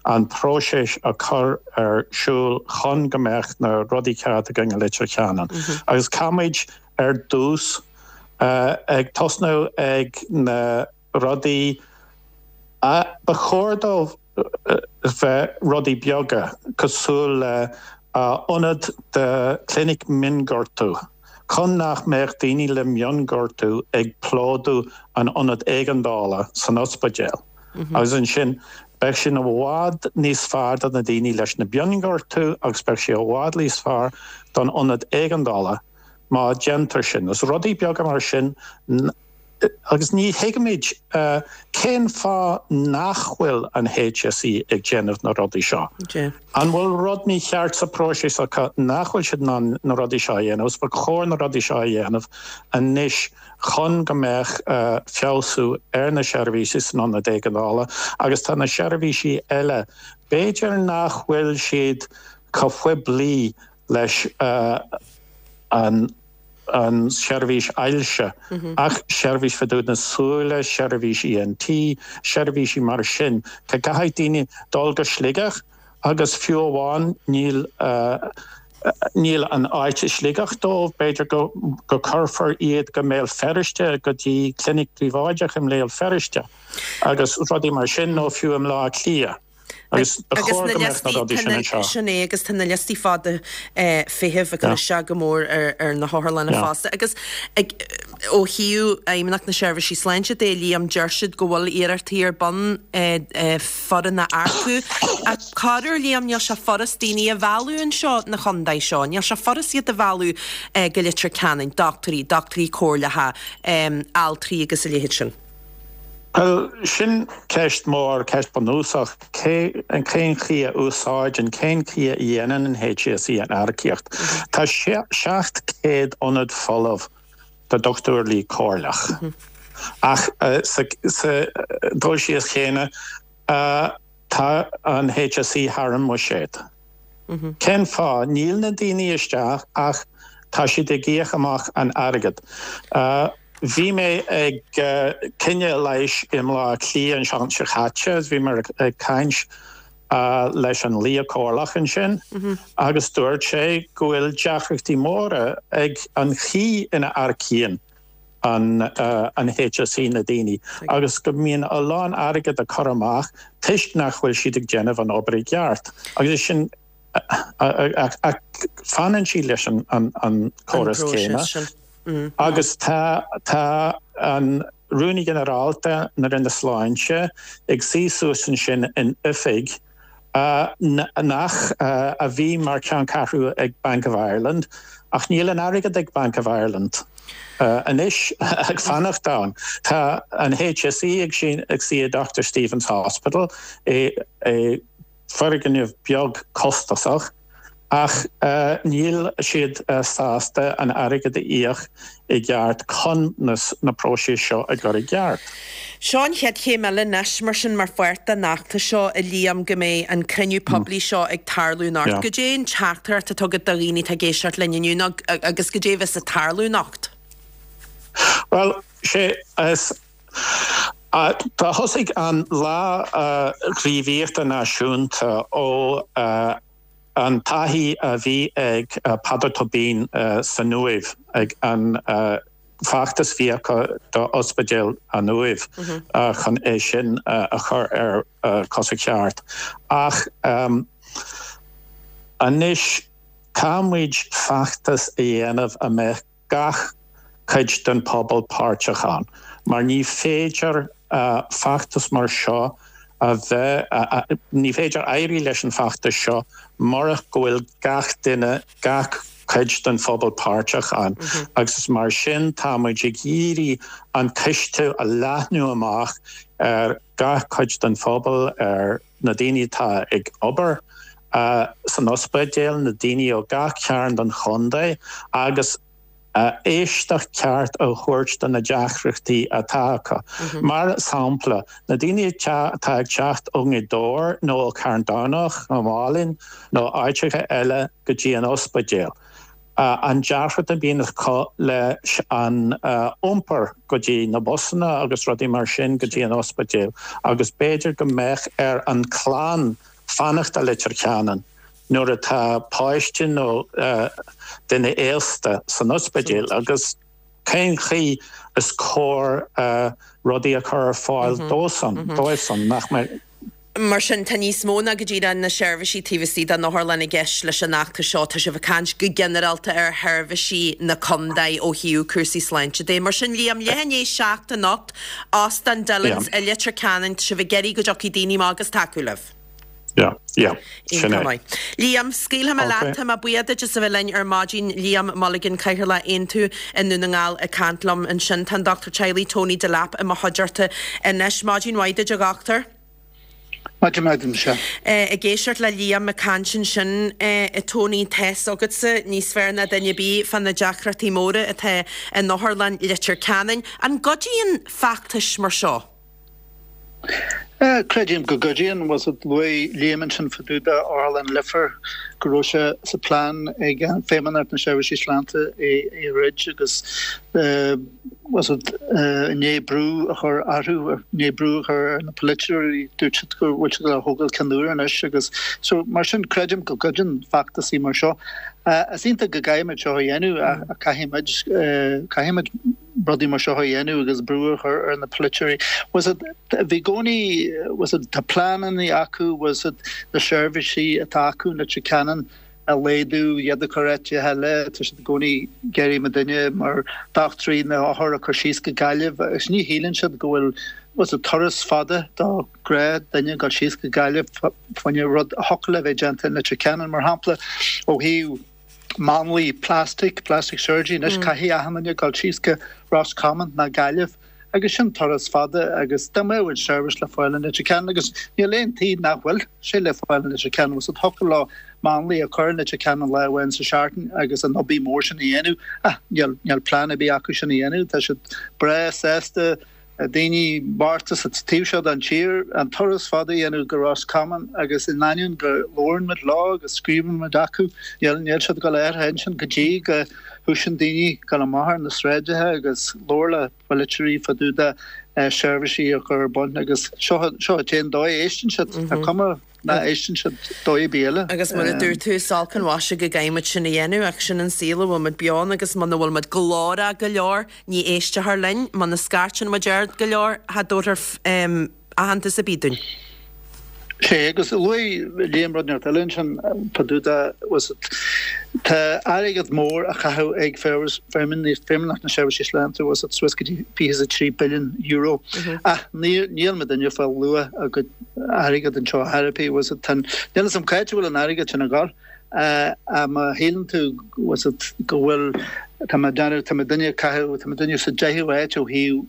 an próiseas a chur ar siúl chun go mbeadh na rudaí ceart againn i Leitir Ceanainn. Agus caithfimid ar dtús ag tosnú ag na rudaí a ba chóir dóibh bheith rudaí beaga, cosúil le ionad de clinic mionghortú, chun nach mbeadh daoine le mionghortú ag plódú an ionad éigeandála san ospidéal. Agus ansin, beidh sin i bhfad níos fearr do na daoine leis na mionghortú agus beidh sé i bhfad níos fearr don ionad éigeandála má déantar sin. Is rudaí beaga mar sin Agus ní thuigimid cén fáth nach bhfuil an HSE ag déanamh na rudaí seo. An bhfuil rud mícheart sa próiseas acu nach bhfuil siad in ann na rudaí seo a dhéanamh? Agus ba chóir na rudaí seo a dhéanamh anois chun go mbeadh feabhsú ar na seirbhísí san ionad éigeandála agus tá na seirbhísí eile, b'fhéidir nach bhfuil siad chomh poiblí leis an an seirbhís ailse, ach seirbhís fá dtaobh na súile, seirbhís ENT, seirbhísí mar sin. Tá caithfidh daoine dul go Sligeach agus fiú amháin níl níl an áit i Sligeach dóibh, b'fhéidir go go cuirfear iad go mBéal Feirste go dtí clinic príobháideach i mBéal Feirste agus rudaí mar sin nó fiú i mBleá Cliath. Agus ba chóir go mbeadh na rudaí sin anseo. Sin é, agus tá na liostaí fada feithimh ag cur isteach go mór ar na hotharlanna fosta. Agus ó thaobh Fheidhmeannacht na Seirbhísí Sláinte de, Liam, deir siad go bhfuil iarrachtaí ar bun foireann a earcú. Ach corruair, Liam, níl sé furast daoine a mhealladh anseo na chontae seo. Níl sé furast iad a mhealladh go Leitir Ceanainn, dochtúirí, dochtúirí comhairleacha, altraí agus a leithéid sin. Bhuel, sin ceist mhór, ceist bunúsach. Cé, cén chaoi a úsáideann, cén chaoi a dhéanann an HSE an earcaíocht? Tá 700 ionad folamh do dochtúirí comhairleach. Ach sa dul síos chéanna, tá an HSE thar an mbuiséad. Cén fáth? Níl na daoine isteach ach tá siad ag íoc amach an airgead. Bhí mé ag coinne leighis i mBleá Cliath an seachtain seo caite agus bhí mé ag caint leis an lia comhairleach ansin agus dúirt sé go bhfuil deacrachtaí móra ag an chaoi ina earcaíonn an HSE na daoine agus go mbíonn a lán airgead á cur amach toisc nach bhfuil siad ag déanamh an obair i gceart agus sin. Ach fanann sí leis an córas céanna. Agus tá tá an Rúnaí Ginearálta na Roinne Sláinte ag suí suas ansin in oifig nach a bhí mar cheanncheathrú ag Bank of Ireland, ach níl an airgead ag Bank of Ireland anois ag fanacht ann. Tá an HSE ag suí i Doctor Steevens Hospital i foirgneamh beag costasach ach níl siad sásta an airgead a íoc i gceart chun na próisis seo a chur i gceart. Seo an chéad chéim eile anois mar sin mar pháirt den fheachtas seo a Liam go mbeidh an cruinniú poiblí seo ag tarlú anocht. Goidé an teachtaireacht atá agat do dhaoine atá ag éisteacht linn inniu nó agus goidé a bheas ag tarlú anocht? Bhuel, sé is. Tá thosaigh an Lá Gníomhaíochta Náisiúnta ó an taithí a bhí ag Peadar Tóibín san Uaimh ag an feachtas bhí acu do Ospidéal an Uaimh chun é sin a chur ar cosa ceart. Ach anois tá muid feachtas a dhéanamh a mbeadh gach cuid den phobal páirteach ann, mar ní féidir feachtas mar seo a bheith, ní féidir éirí leis an bhfeachtas seo murach go bhfuil gach duine, gach cuid den phobal páirteach ann agus is mar sin tá muid ag iarraidh an cistiú a leathnú amach ar gach cuid den phobal, ar na daoine atá ag obair san ospidéal, na daoine ó gach cearn den chontae agus éisteacht ceart a thabhairt do na deacrachtaí atá acu. Mar sampla, na daoine atá ag teacht ó nGaoth Dobhair nó ó Charn Domhnach nó Málainn nó áiteacha eile go dtí an ospidéal. An deacracht a bhíonn acu leis an iompar go dtí na busanna agus rudaí mar sin go dtí an ospidéal agus b'fhéidir go mbeadh ar an clann fanacht i Leitir Ceanainn nuair atá páiste nó duine aosta san ospidéal agus cén chaoi is cóir rudaí a chur ar fáil dósan, dóibhsan, nach mbeadh. Mar sin, tá níos mó ná go díreach na seirbhísí taobh istigh den otharlann i gceist leis an fheachtas seo. Tá sibh ag caint go ginearálta ar sheirbhísí na contae ó thaobh cúrsaí sláinte de. Mar sin, Liam, leath i ndiaidh 7 anocht, Óstán Dillon's i Leitir Ceanainn, tá sibh ag iarraidh go dtiocfaidh daoine amach agus tacú libh. Yeah, yeah, sin é. Maith. Liam, scaoilfidh mé leat, tá mé buíoch duit as a bheith linn ar maidin. Liam Mulligan, Cathaoirleach Aontú i nDún na nGall ag caint liom ansin. Tá an Dochtúir Teaghlaigh Tony Delap i mo chuideachta anois. Maidin mhaith duit, a dhochtúir. Maidin mhaith duit, Michelle. Ag éisteacht le Liam ag caint ansin, a Tony, tá's agatsa níos fearr ná duine ar bith fá na deacrachtaí móra atá in Otharlann Leitir Ceanainn. An gcuidíonn feachtais mar seo? Creidim go gcuidíonn. Bhfuil 's agat, luaigh Liam ansin fá dtaobh de Otharlann Leifear go raibh sé sa plean ag Feidhmeannacht na Seirbhísí Sláinte é a dhruid agus bhfuil 's agat, i ndiaidh brú a chur orthu, i ndiaidh brú a chur ar na polaiteoirí, dúirt siad go bhfuil siad á thógáil ceann úr anois agus so mar sin creidim go gcuidíonn feachtasaí mar seo. Is iontach go gcaithfimid seo a dhéanamh ach caithfimid, caithfimid rudaí mar seo a dhéanamh agus brú a chur ar na polaiteoirí. Bhfuil 's agat, bhí i gcónaí, bhfuil 's agat, tá pleananna acu, bhfuil 's agat, na seirbhísí atá acu in Leitir Ceanainn a laghdú, iad a chur áiteacha eile, tá siad i gcónaí ag iarraidh muidinne mar dochtúirí na hothair a chur síos go Gaillimh agus ní shíleann siad go bhfuil, bhfuil 's agat, turas fada do ghnáth-dhuine ag dul síos go Gaillimh fá choinne rud a thiocfadh le bheith déanta in Leitir Ceanainn, mar shampla, ó thaobh. máinlia plastic, plastic surgery, anois caithfidh achan duine dul síos go Ros Comáin ná Gaillimh agus sin turas fada agus dá mbeadh an seirbhís le fáil in Leitir Ceanainn agus níl aon taobh nach bhfuil sé le fáil in Leitir Ceanainn bhfuil 's agat thiocfadh leo máinlia a chur in Leitir Ceanainn lá amháin sa seachtain agus an obair mhór sin a dhéanamh ach níl níl plean ar bith acu sin a dhéanamh tá siad breá sásta daoine bochta sa taobh seo den tír, an turas fada a dhéanamh go Ros Comáin agus in ainneoin go labhrann muid leo agus scríobhann muid acu, níl níl siad ag dul ar a intinn go dtí go thosaíonn daoine ag dul amach ar na sráideacha agus labhairt le polaiteoirí fá dtaobh de seirbhísí a chur ar bun agus seo seo an t-aon dóigh a éisteann siad. Tá cuma nach éisteann siad dóigh ar bith eile. Agus mar a dúirt tú, is olc an mhaise go gcaithfidh muid sin a dhéanamh, ach sin an saol a bhfuil muid beo ann agus muna bhfuil muid glórach go leor, ní éisteofar linn, muna scairteann muid ard go leor, cha dtabharfar aitheantas ar bith dúinn. Sé, agus luaigh Liam rud inteacht eile ansin, fá dtaobh de, bhfuil 's agat, tá airgead mór á chaitheamh ag Feidhmeannacht na Seirbhíse Sláinte, bhfuil 's agat, suas go dtí €23 billiún, ach níl muidinne ag fáil luach ár gcuid airgead anseo ar chor ar bith, bhfuil 's agat, tá, níl 'fhios a'm c'áit a bhfuil an airgead sin ag dul. Ach má shíleann tú, bhfuil 's agat, go bhfuil, tá mé ag déanamh, tá muidinne ag caitheamh, tá muidinne sa deichiú háit ó thaobh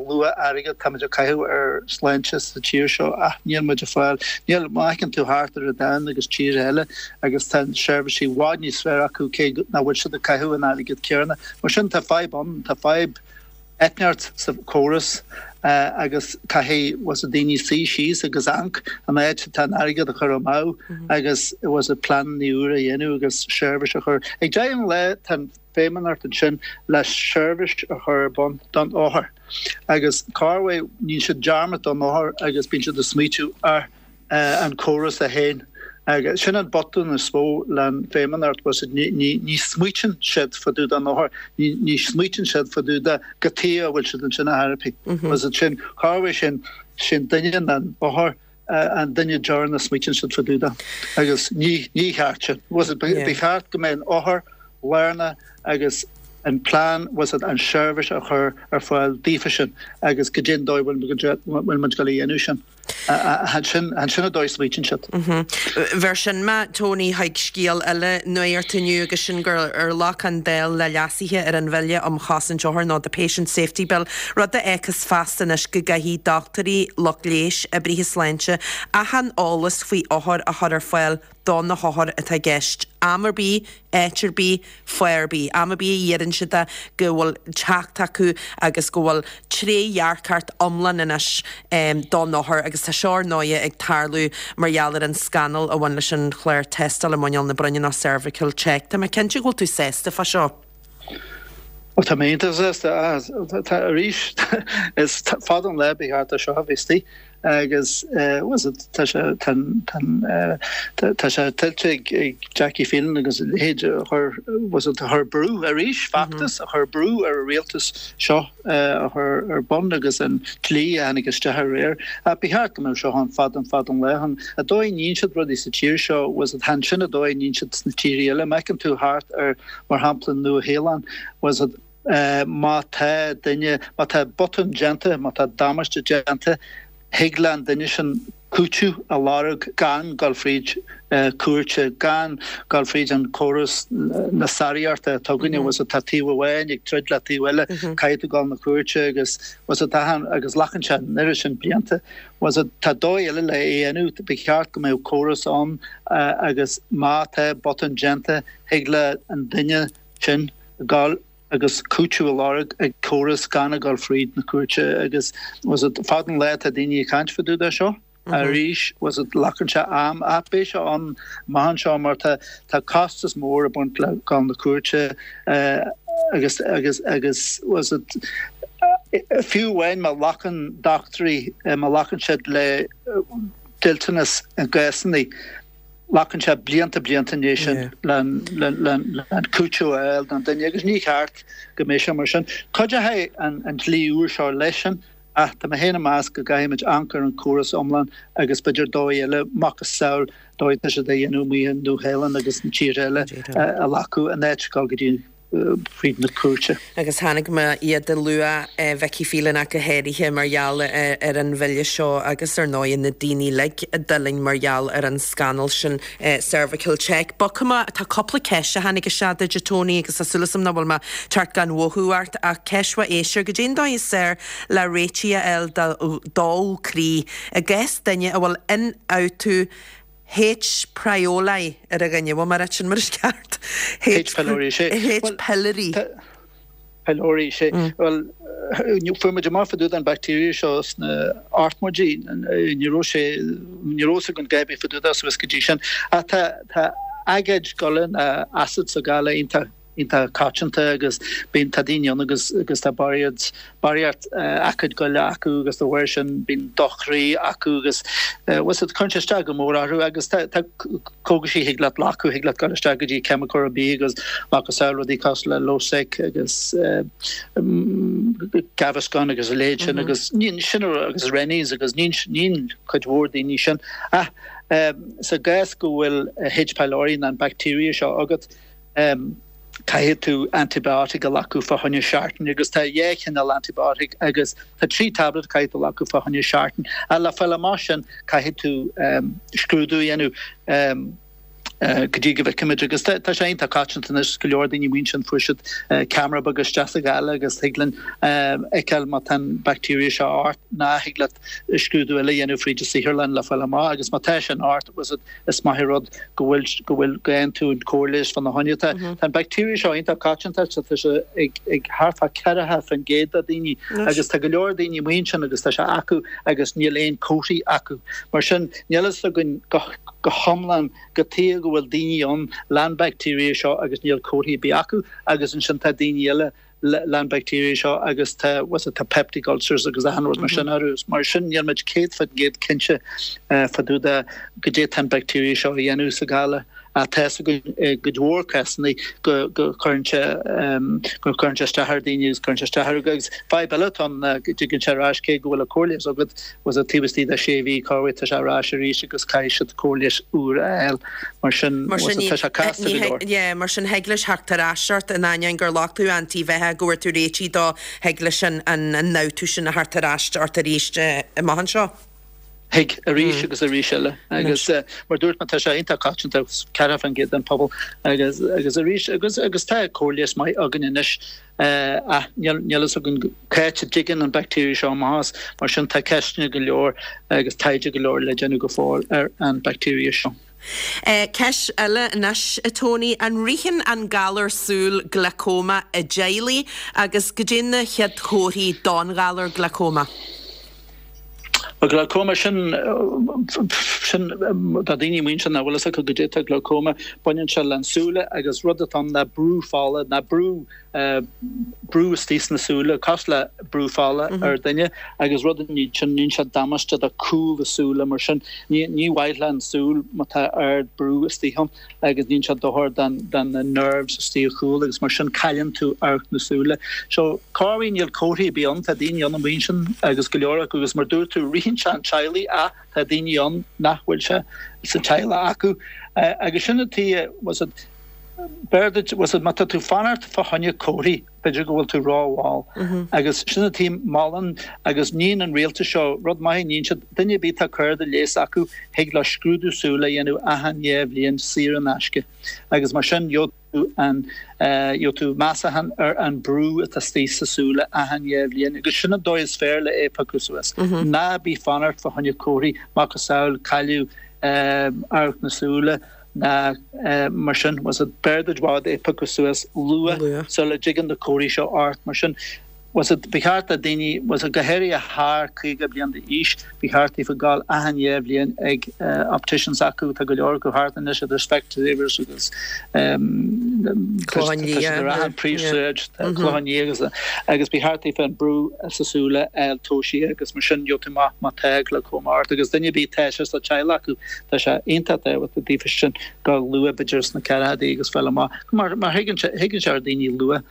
luach airgid, tá muid ag caitheamh ar sláinte sa tír seo ach níl muid ag fáil, níl, má fheiceann tú thart ar an domhan agus tíortha eile agus tá seirbhísí i bhfad níos fearr acu cé nach bhfuil siad ag caitheamh an airgead céanna. Mar sin tá fadhb ann, tá fadhb. inteacht sa chóras agus caithfidh bhfuil 's agat daoine suí síos agus amharc an áit atá an airgead á chur amú agus bhfuil 's agat pleananna úra a dhéanamh agus seirbhís a chur. Ag deireadh an lae tá an Feidhmeannacht ansin le seirbhís a chur ar bun don othar agus corruair níonn siad dearmad don othar agus bíonn siad ag smaoitiú ar an córas é féin. Agus sin an botún is mó le'n Feidhmeannacht, bhfuil 's agat, ní smaoitíonn siad fá dtaobh den othar, ní smaoitíonn siad fá dtaobh de cad chuige a bhfuil siad ansin ar chor ar bith. Bhfuil 's agat, sin, corruair sin, sin duine an othar, an duine deireanach a smaoitíonn siad fá dtaobh de. Agus ní, ní cheart sin. Bhfuil 's agat, ba cheart go mbeadh an othar lárnach agus an plean, bhfuil 's agat, an seirbhís a chur ar fáil daofa sin agus goidé an dóigh bhfuil muid ag dul a dhéanamh sin. Sin an dóigh a smaoitíonn siad. Bheir sin mé, Tony, chuig scéal eile nuachta inniu agus sin gur ghlac an Dáil le leasuithe ar an Bhille um Chosaint Othar nó The Patient Safety Bill, rud a fhágfas feasta anois go gcaithfidh dochtúirí, lucht leighis, oibrithe sláinte achan eolas faoi othair a chur ar fáil do na hothair atá i gceist, am ar bith, áit ar bith, fáth ar bith, am ar bith a iarrann siad é, go bhfuil teacht acu agus go bhfuil trédhearcacht iomlán anois don othar agus tá seo ar ndóighe ag tarlú mar gheall ar an scannal a bhain leis an chlár tástála muineál na broinne nó cervical check. Tá mé cinnte go bhfuil tú sásta fá seo. Ó tá mé iontach sásta. Tá arís is fada an lá ba cheart do seo a bheith istigh. Agus bhfuil 's agat, tá sé, tá an, tá an, tá sé tuillte ag Jackie Phelan agus a leithéid a chuir, bhfuil 's agat, a chuir brú arís, feachtas a chuir brú ar an rialtas seo a chur ar bun agus an dlí a tháinig isteach aréir. Ach ba cheart go mbeadh seo ann fada an fada an lá. An dóigh a níonn siad rudaí sa tír seo, bhfuil 's agat, chan sin an dóigh a níonn siad sna tíortha eile. Má fheiceann tú thart ar, mar shampla, Nua-Shéalainn, bhfuil 's agat, Má tá duine, má tá botún déanta, má tá damáiste déanta, thig le an duine sin cúiteamh a lorg gan dul fríd cúirte, gan dul fríd an córas na sáraíochta atá againne, bhfuil 's agat, tá taobh amháin ag troid le taobh eile, caithfidh tú dul na cúirte agus, bhfuil 's agat, agus glacann sé an oiread sin blianta. Bhfuil 's agat, tá dóigh eile le é a dhéanamh, ba cheart go mbeadh córas ann agus má tá botún déanta, thig le an duine sin dul agus cúiteamh a lorg ag córas gan a dhul fríd na cúirte agus bhfuil 's agat, fada an lá atá daoine ag caint fá dtaobh de seo arís, bhfuil 's agat, glacann sé am ach beidh sé ann amach anseo mar tá tá costas mór ag baint le dul na cúirte agus agus agus bhfuil 's agat, fiú amháin má ghlacann dochtúirí má ghlacann siad le dliteanas i gcásanna Glacann sé blianta blianta i ndiaidh sin le cúiteamh a fháil don duine agus ní cheart go mbeadh sé mar sin. Cuideoidh an dlí úr seo leis sin ach tá mé féin ag meas go gcaithfidh muid amharc ar an córas iomlán agus b'fhéidir dóigh eile, macasamhail dóigh atá siad á dhéanamh amuigh i Nua-Shéalainn agus na tíortha eile a ghlacadh in áit dul go dtí fríd na cúirte. Agus chonaic mé iad ag lua Vicky Phelan ach go háirithe mar gheall ar an bhille seo agus ar ndóigh na daoine uilig a d'fhulaing mar gheall ar an scannal sin Cervical Check. Bogfaidh mé, tá cúpla ceist a tháinig isteach duit a Tony agus tá súil agam nach bhfuil mé ag teacht gan mhothú ort ach ceist ó éisteoir, goidé an dóigh is fearr le réitigh a fháil do dó croí i gcás duine a bhfuil ionfhabhtú H. Pylori ar a dhuine. Bhfuil mé ag ráit sin mar is ceart? H. Pylori, sé. H. Pylori. Pylori, sé. Bhuel, fuair muid amach fá dtaobh den bacteria seo sna hochtmóidí. Ní raibh sé, ní raibh fhios againn a dhath ar bith fá dtaobh de suas go dtí sin. Ach tá, tá aigéad goile, acid sa ghoile iontach. iontach coitianta agus bíonn, tá daoine ann agus agus tá barraíocht, barraíocht aicíd goile acu agus dá bharr sin bíonn dochroí acu agus bhfuil 's agat, cuireann sé isteach go mór orthu agus tá, tá cógaisí thig leat glacadh, thig leat dul isteach go dtí ceimiceoir ar bith agus macasamhail rudaí cosúil le Losec agus Gaviscon agus a leithéid sin agus níonn sin agus Rennies agus níonn, níonn cuid mhór daoine sin ach sa gcás go bhfuil H pylori nó an bacteria seo agat, Caithfidh tú antibiotic a ghlacadh fá choinne seachtain agus tá dhá chineál antibiotic agus tá 3 tablet caithfidh tú a ghlacadh fá choinne seachtain. Ach le fáil amach sin caithfidh tú scrúdú a dhéanamh go dtí go bhfeicfimid agus tá sé iontach coitianta anois go leor daoine amuigh ansin fuair siad ceamara beag isteach sa ghála agus thig linn fheiceáil má tá an bacteria seo ort ná thig leat scrúdú eile a dhéanamh fríd an saotharlann le fáil amach agus má tá sin ort Is maith an rud go bhfuil, go bhfuil, go bhfaigheann tú an cóir leighis fá na choinne. Tá an bacteria seo iontach coitianta, tá sé ag, ag thart fá 40% de daoine agus tá go leor daoine amuigh ansin agus tá sé acu agus níl aon comharthaí acu. Mar sin, níl fhios againn go, go hiomlán cad tuige go bhfuil daoine ann leis an bacteria seo agus níl comharthaí ar bith acu agus ansin tá daoine eile leis an bacteria seo agus tá, what's it, tá peptic ulcers agus achan rud mar sin orthu. Mar sin níl muid 100% cinnte fá dtaobh de goidé tá an bacteria seo a dhéanamh sa ghála. Ach tá fhios againn i gcuid mhór cásanna go go cuireann sé go cuireann sé isteach ar daoine agus cuireann sé isteach orthu agus fadhb eile atá ann ná go dtigeann sé ar ais cé go bhfuil an cóir leighis agat was it taobh istigh de sé mhí corruair tá sé ar ais arís agus caithfidh siad cóir leighis úr a fháil. Mar sin, Mar sin, tá sé casta go leor. Yeah, mar sin thig leis theacht ar ais ort in ainneoin gur ghlac tú antaibheathach go bhfuair tú réitithe dó, thig leis an an-fhabhtú sin a theacht ar ais ort arís amach anseo. Thig, arís agus arís eile. Agus mar dúirt mé, tá sé iontach coitianta, 40% den phobal agus agus arís agus agus tá cóir leighis maith againn anois ach níl níl fhios againn cá háit a dtigeann an bacteria seo amach as. Mar sin tá ceisteanna go leor agus taighde go leor le déanamh go fóill ar an bacteria seo. Ceist eile anois, a Tony, an ritheann an galar súl glaucoma i dteaghlaigh agus goidé na chéad chomharthaí don ghalar glaucoma? Bhuel, glaucoma, sin, sin, do daoine amuigh ansin nach bhfuil fhios acu goidé tá glaucoma, baineann sé le an súile agus rud atá ann ná brú fola, ná brú, brú istigh sna súile, cosúil le brú fola ar duine agus rud a níonn sin, níonn sé damáiste do cúl na súile mar sin ní ní mhaith le an súil má tá ard brú istigh ann agus níonn sé dochar don don na nerves istigh a chúl agus mar sin cailleann tú amharc na súile. So corruair níl comharthaí ar bith ann, tá daoine ann amuigh ansin agus go leor acu agus mar dúirt tú ritheann sé an teaghlaigh ach tá daoine ann nach bhfuil sé sa teaghlach acu agus sin an tuige was it B'fhearr duit, bhfuil 's agat, má tá tú fanacht fá choinne comharthaí, b'fhéidir go bhfuil tú ró-mhall. Agus sin an tuige, molann agus níonn an rialtas seo rud maith, níonn siad, duine ar bith tá cárta leighis acu, thig leo scrúdú súl a dhéanamh achan dhá bhliain saor in aisce. Agus mar sin, gheobhaidh tú an, gheobhaidh tú measachán ar an brú atá istigh sa súile achan dhá bhliain. Agus sin an dóigh is fearr le é a phiocadh suas. Ná bí fanacht fá choinne comharthaí, macasamhail cailleadh amharc na súile, ná mar sin, bhfuil 's agat, b'fhearr duit i bhfad é a phiocadh suas luath sula dtigeann na comharthaí seo ort. Mar sin, bhfuil 's agat, ba cheart do daoine, bhfuil 's agat, go háirithe thar 50 bliain d'aois, ba cheart daofa gabháil achan dhá bhliain ag opticians acu, tá go leor acu thart anois idir Specsavers agus Clochán Liath, tá siad ar achan príomhshráid, Clochán Liath agus agus ba cheart daofa an brú sa súile a fháil tomhaiste agus mar sin gheobhaidh tú amach má tá glaucoma ort agus duine ar bith tá sé sa teaghlach acu. Tá sé iontach tábhachtach daofa sin gabháil luath, b'fhéidir sna ceathrachaidí agus fáil amach mar mar thigeann sé thigeann sé ar daoine luath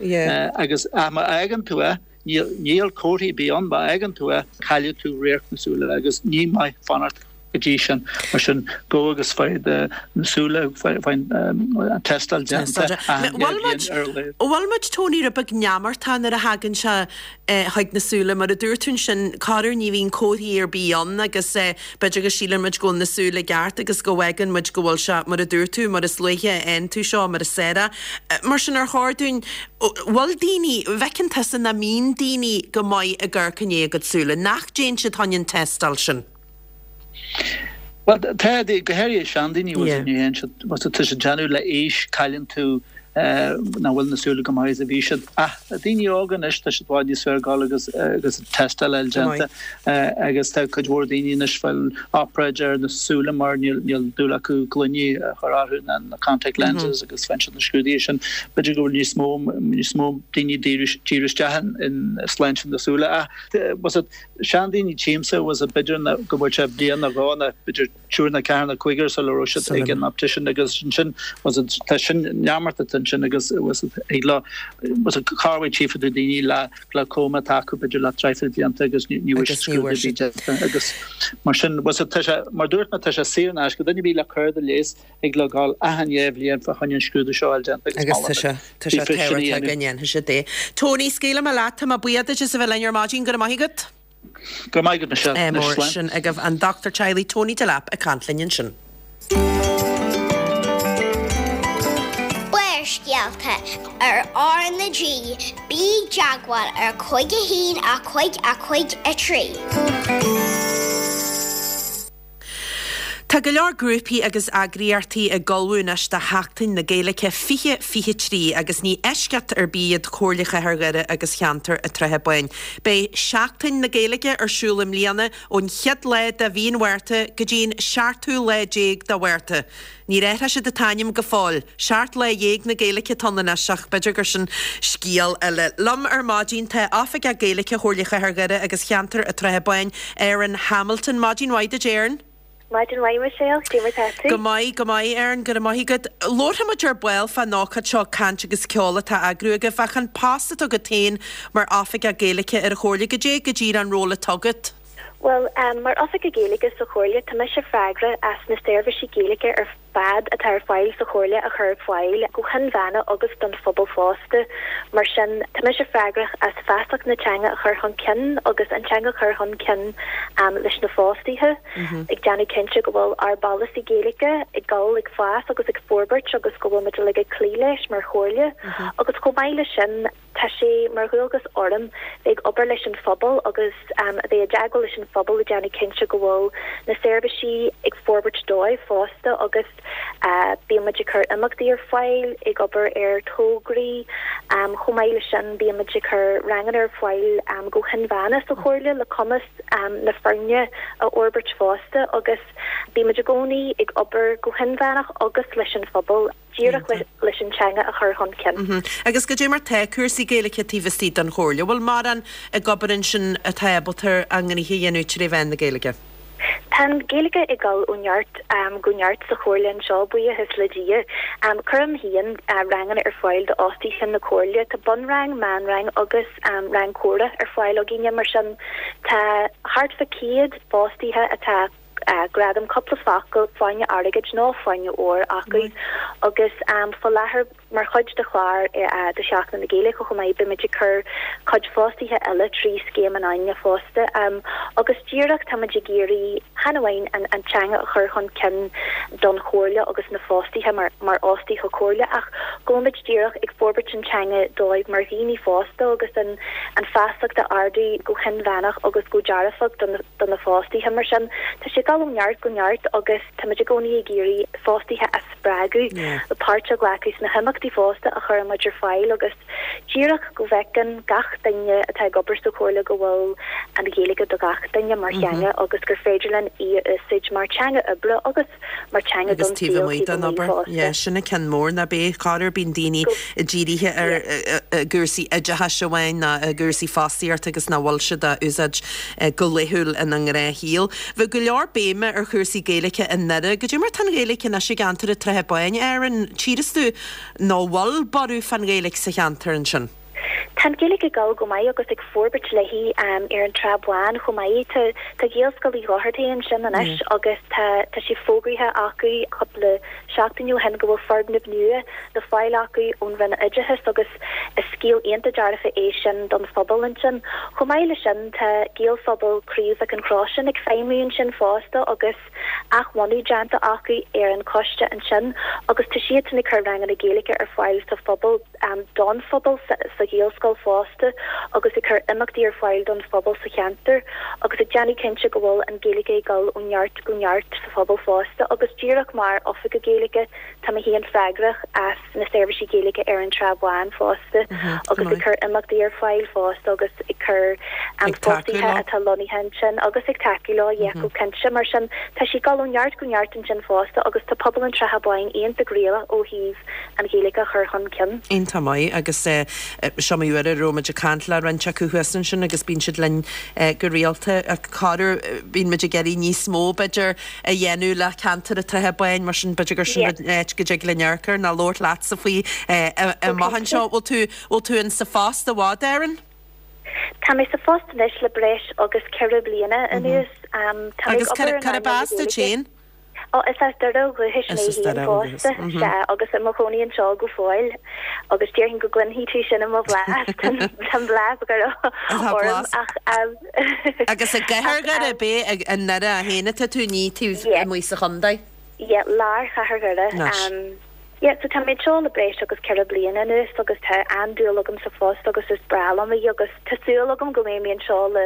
agus ach má fhágann tú é níl níl comharthaí ar bith ann má fhágann tú é caillfidh tú radharc na súile agus ní maith fanacht go dtí sin mar sin gabh agus faigh do na súile faigh faigh an tástáil déanta achan Bhfuil muid bhliain ar a laghad. bhfuil muid Tony rud beag neamartach nuair a thagann sé chuig na súile. Mar a dúirt tú ansin, corruair ní bhíonn comharthaí ar bith ann agus b'fhéidir go síleann muid go bhfuil na súile i gceart agus go bhfágann muid go bhfuil sé, mar a dúirt tú, mar is luaithe a fhaigheann tú seo, mar is fearr é. Mar sin, ar chóir dúinn, bhfuil daoine, bhfeiceann tusa nach mbíonn daoine go maith ag amharc i ndiaidh a gcuid súile, nach dtéann siad chun an tástáil sin? Bhuel, tá, go háirithe seandaoine, bhfuil, ní théann siad, tá siad ag déanamh le aois, cailleann tú. Nach bhfuil na súile chomh maith is a bhí siad. Ach daoine óga anois, tá siad i bhfad níos fearr ag gabháil agus agus tástáil a fháil déanta agus tá cuid mhór daoine anois ag fáil obráid ar na súile mar níl níl dúil acu gloiní a chur orthu ná na contact lenses agus faigheann siad na scrúduithe sin. B'fhéidir go bhfuil níos mó níos mó daoine ag díriú díriú isteach in sláinte na súile. Ach bhfuil a fhios agat seandaoine tchímse bhfuil a fhios agat b'fhéidir go bhfuil sé bliain nó dhó nó b'fhéidir triúr nó ceathrar nó cúigear sula raibh siad ag an optician agus ansin bhfuil a fhios agat tá sin neamart atá ansin agus bhfuil a fhios agat ag le bhfuil a fhios agat corruair tchífidh tú daoine le glaucoma atá acu b'fhéidir le traidhfil blianta agus ní ní bhfuil scrúdú ar bith déanta agus mar sin bhfuil a fhios agat tá sé mar dúirt mé tá sé saor in aisce duine ar bith le cárta leighis thig leo gabháil achan dhéa bhliain fá choinne an scrúdú seo a fháil déanta agus Agus tá sé tá sé tábhachtach go ndéanfaidh siad é. Tony, scaoilfidh mé leat, tá mé buíoch duit as a bheith linn ar maidin, go raibh maith agat. Go raibh maith agat Michelle. Anois slán. Sin agaibh an Dochtúir Teaghlaigh Tony Delap ag caint linn ansin. Barrscéalta ar R na G, bí i dteagmháil ar 5 1 5 5 3. Tá go leor grúpaí agus eagraíochtaí ag ullmhú anois do Sheachtain na Gaeilge 2023 agus ní eisceacht ar bith iad Comhairle Chathair Dhoire agus Cheantar an tSratha Báin. Beidh Seachtain na Gaeilge ar siúl i mbliana ón chéad lá de mhí an Mhárta go dtí an seachtú lá déag de Mhárta. Níor athraigh siad an t-ainm go fóill. Seacht Lá Dhéag na Gaeilge atá ann anois ach b'fhéidir gur sin scéal eile. Liom ar maidin tá Oifigeach Gaeilge Chomhairle Chathair Dhoire agus Cheantar an tSratha Báin, Erin Hamilton. Maidin mhaith duit Erin. Maidin mhaith Michelle, cad é mar tá tú? Go maith, go maith Erin, go raibh maith agat. Labharfaidh muid ar ball fán ócáid seo Caint agus Ceol atá á eagrú agaibh ach an post atá agat féin mar Oifigeach Gaeilge ar an Chomhairle, goidé go díreach an ról atá agat? Bhuel, mar Oifigeach Gaeilge sa Chomhairle, tá mise freagrach as na seirbhísí Gaeilge ar fad atá ar fáil sa Chomhairle a chur ar fáil go hinmheánach agus don phobal fosta. Mar sin, tá mise freagrach as feasacht na teanga a chur chun cinn agus an teanga a chur chun cinn leis na fostaithe, ag déanamh cinnte go bhfuil ár bpolasaí Gaeilge ag dul ag fás agus ag forbairt agus go bhfuil muid uilig ag cloí leis mar Chomhairle. Agus chomh maith leis sin, Tá sé mar dhualgas orm bheith ag obair leis an phobal agus a bheith i dteagmháil leis an phobal ag déanamh cinnte go bhfuil na seirbhísí ag forbairt dóibh fosta agus bíonn muid ag cur imeachtaí ar fáil, ag obair ar tograí. Chomh maith leis sin bíonn muid ag cur ranganna ar fáil go hinmheánach sa Chomhairle le cumas na foirne a fhorbairt fosta agus bíonn muid i gcónaí ag obair go hinmheánach agus leis an phobal. díreach leis an teanga a chur chun cinn. Agus goidé mar tá cúrsaí Gaeilge taobh istigh den Chomhairle? Bhfuil mórán ag obair ansin atá ábalta a ngnoithe a dhéanamh tré mheán na Gaeilge? Tá an Ghaeilge ag dul ó neart go neart sa Chomhairle anseo, buíochas le Dia. Cuirim féin ranganna ar fáil d'fhostaithe na Comhairle. Tá bunrang, meánrang agus rang comhrá ar fáil againne. Mar sin, tá thart fá 100 fostaithe atá. gradam cúpla focal, fáinne airgid nó fáinne óir acu agus faoi láthair mar chuid de chlár de Sheachtain na Gaeilge chomh maith beimid ag cur cuid fostaithe eile trí Scéim an Fháinne fosta agus díreach táimid ag iarraidh chan amháin an teanga a chur chun cinn don Chomhairle agus na fostaithe mar mar fhostaithe Comhairle ach go bhfuilimid díreach ag forbairt an teanga dóibh mar dhaoine fásta agus an an feasacht a ardú go hinmheánach agus go dearfach do na do na fostaithe. Mar sin, tá sé ag dul ó neart go neart agus táimid i gcónaí ag iarraidh fostaithe a spreagadh le páirt a ghlacadh sna himeachtaí fosta a chuireann muid ar fáil agus díreach go bhfeiceann gach duine atá ag obair sa Chomhairle go bhfuil an Ghaeilge do gach duine mar theanga agus gur féidir linn í a úsáid mar teanga oibre agus mar teanga don saol taobh amuigh den obair. Yeah, sin an ceann mór, ná beidh chor ar bíonn daoine dírithe ar gcúrsaí oideachais amháin ná i gcúrsaí fostaíochta agus nach bhfuil siad á úsáid go laethúil ina ngnáthshaol. Bheadh go leor béime ar chúrsaí Gaeilge i nDoire. Goidé mar tá an Ghaeilge anois i gceantar an tSratha Báin, Erin? Tchíreas tú nó bhfuil borradh fán Ghaeilge sa cheantar ansin? Tá an Ghaeilge ag dul go maith agus ag forbairt léi ar an tSrath Bhán chomh maith. Tá tá Gaelscoil Uí Dhochartaigh ansin anois agus tá tá sé fógraithe acu cúpla seachtain ó shin go bhfuil foirgneamh nua le fáil acu ón Roinn Oideachais agus is scéal iontach dearfa é sin don phobal ansin. Chomh maith leis sin tá Gaelphobal Craobh Mhic an Chrosáin ag feidhmiú ansin fosta agus athbhunú déanta acu ar an choiste ansin agus tá siadsan ag cur ranganna Gaeilge ar fáil sa phobal, don phobal sa Ghaelscoil. Ghaelscoil fosta agus ag cur imeachtaí ar fáil don phobal sa cheantar agus ag déanamh cinnte go bhfuil an Ghaeilge ag dul ó neart go neart sa phobal fosta agus díreach mar Oifigeach Gaeilge Tá mé féin freagrach as na seirbhísí Gaeilge ar an Tsrath Bháin fosta agus ag cur imeachtaí ar fáil fosta agus ag cur fostaithe atá lonnaithe ansin agus ag tacú leo, yeah, go cinnte. Mar sin, tá sí ag dul ó neart go neart ansin fosta agus tá pobal an tSratha Báin iontach réalaíoch ó thaobh an Ghaeilge a chur chun cinn. Iontach maith agus is iomaí uair a raibh muid ag caint le roinnt acu thuas ansin agus bíonn siad linn go rialta. Corruair bíonn muid ag iarraidh níos mó b'fhéidir a dhéanamh le ceantar an tSratha Báin, mar sin b'fhéidir gur sin an áit go dtig linn amharc air ná labhairt leatsa faoi amach anseo. Bhfuil tú, bhfuil tú in sa phost i bhfad, Erin? Tá mé sa phost anois le breis agus 4 bliana anuas. Tá mé ag Agus obair in cárb earnáil na as duit Gaeilge. féin? Ó, is as Doire ó dhúchais Is mé as féin Doire ó dhúchas, fosta, sea, agus i mo chónaí anseo go fóill. Agus déarfainn go gcluinfidh tú sin i mo bhlas, tá an blas Dhoire Tá orm blas. ach. Agus i gcathair Dhoire, ab é i nDoire féin atá tú, ní taobh amuigh sa chontae? Yeah, lár chathair Dhoire. Anois. Yeah, so tá mé anseo le breis agus 4 bliana anuas agus tá an-dúil agam sa phost agus is breá liom é agus tá súil agam go mbeidh mé anseo le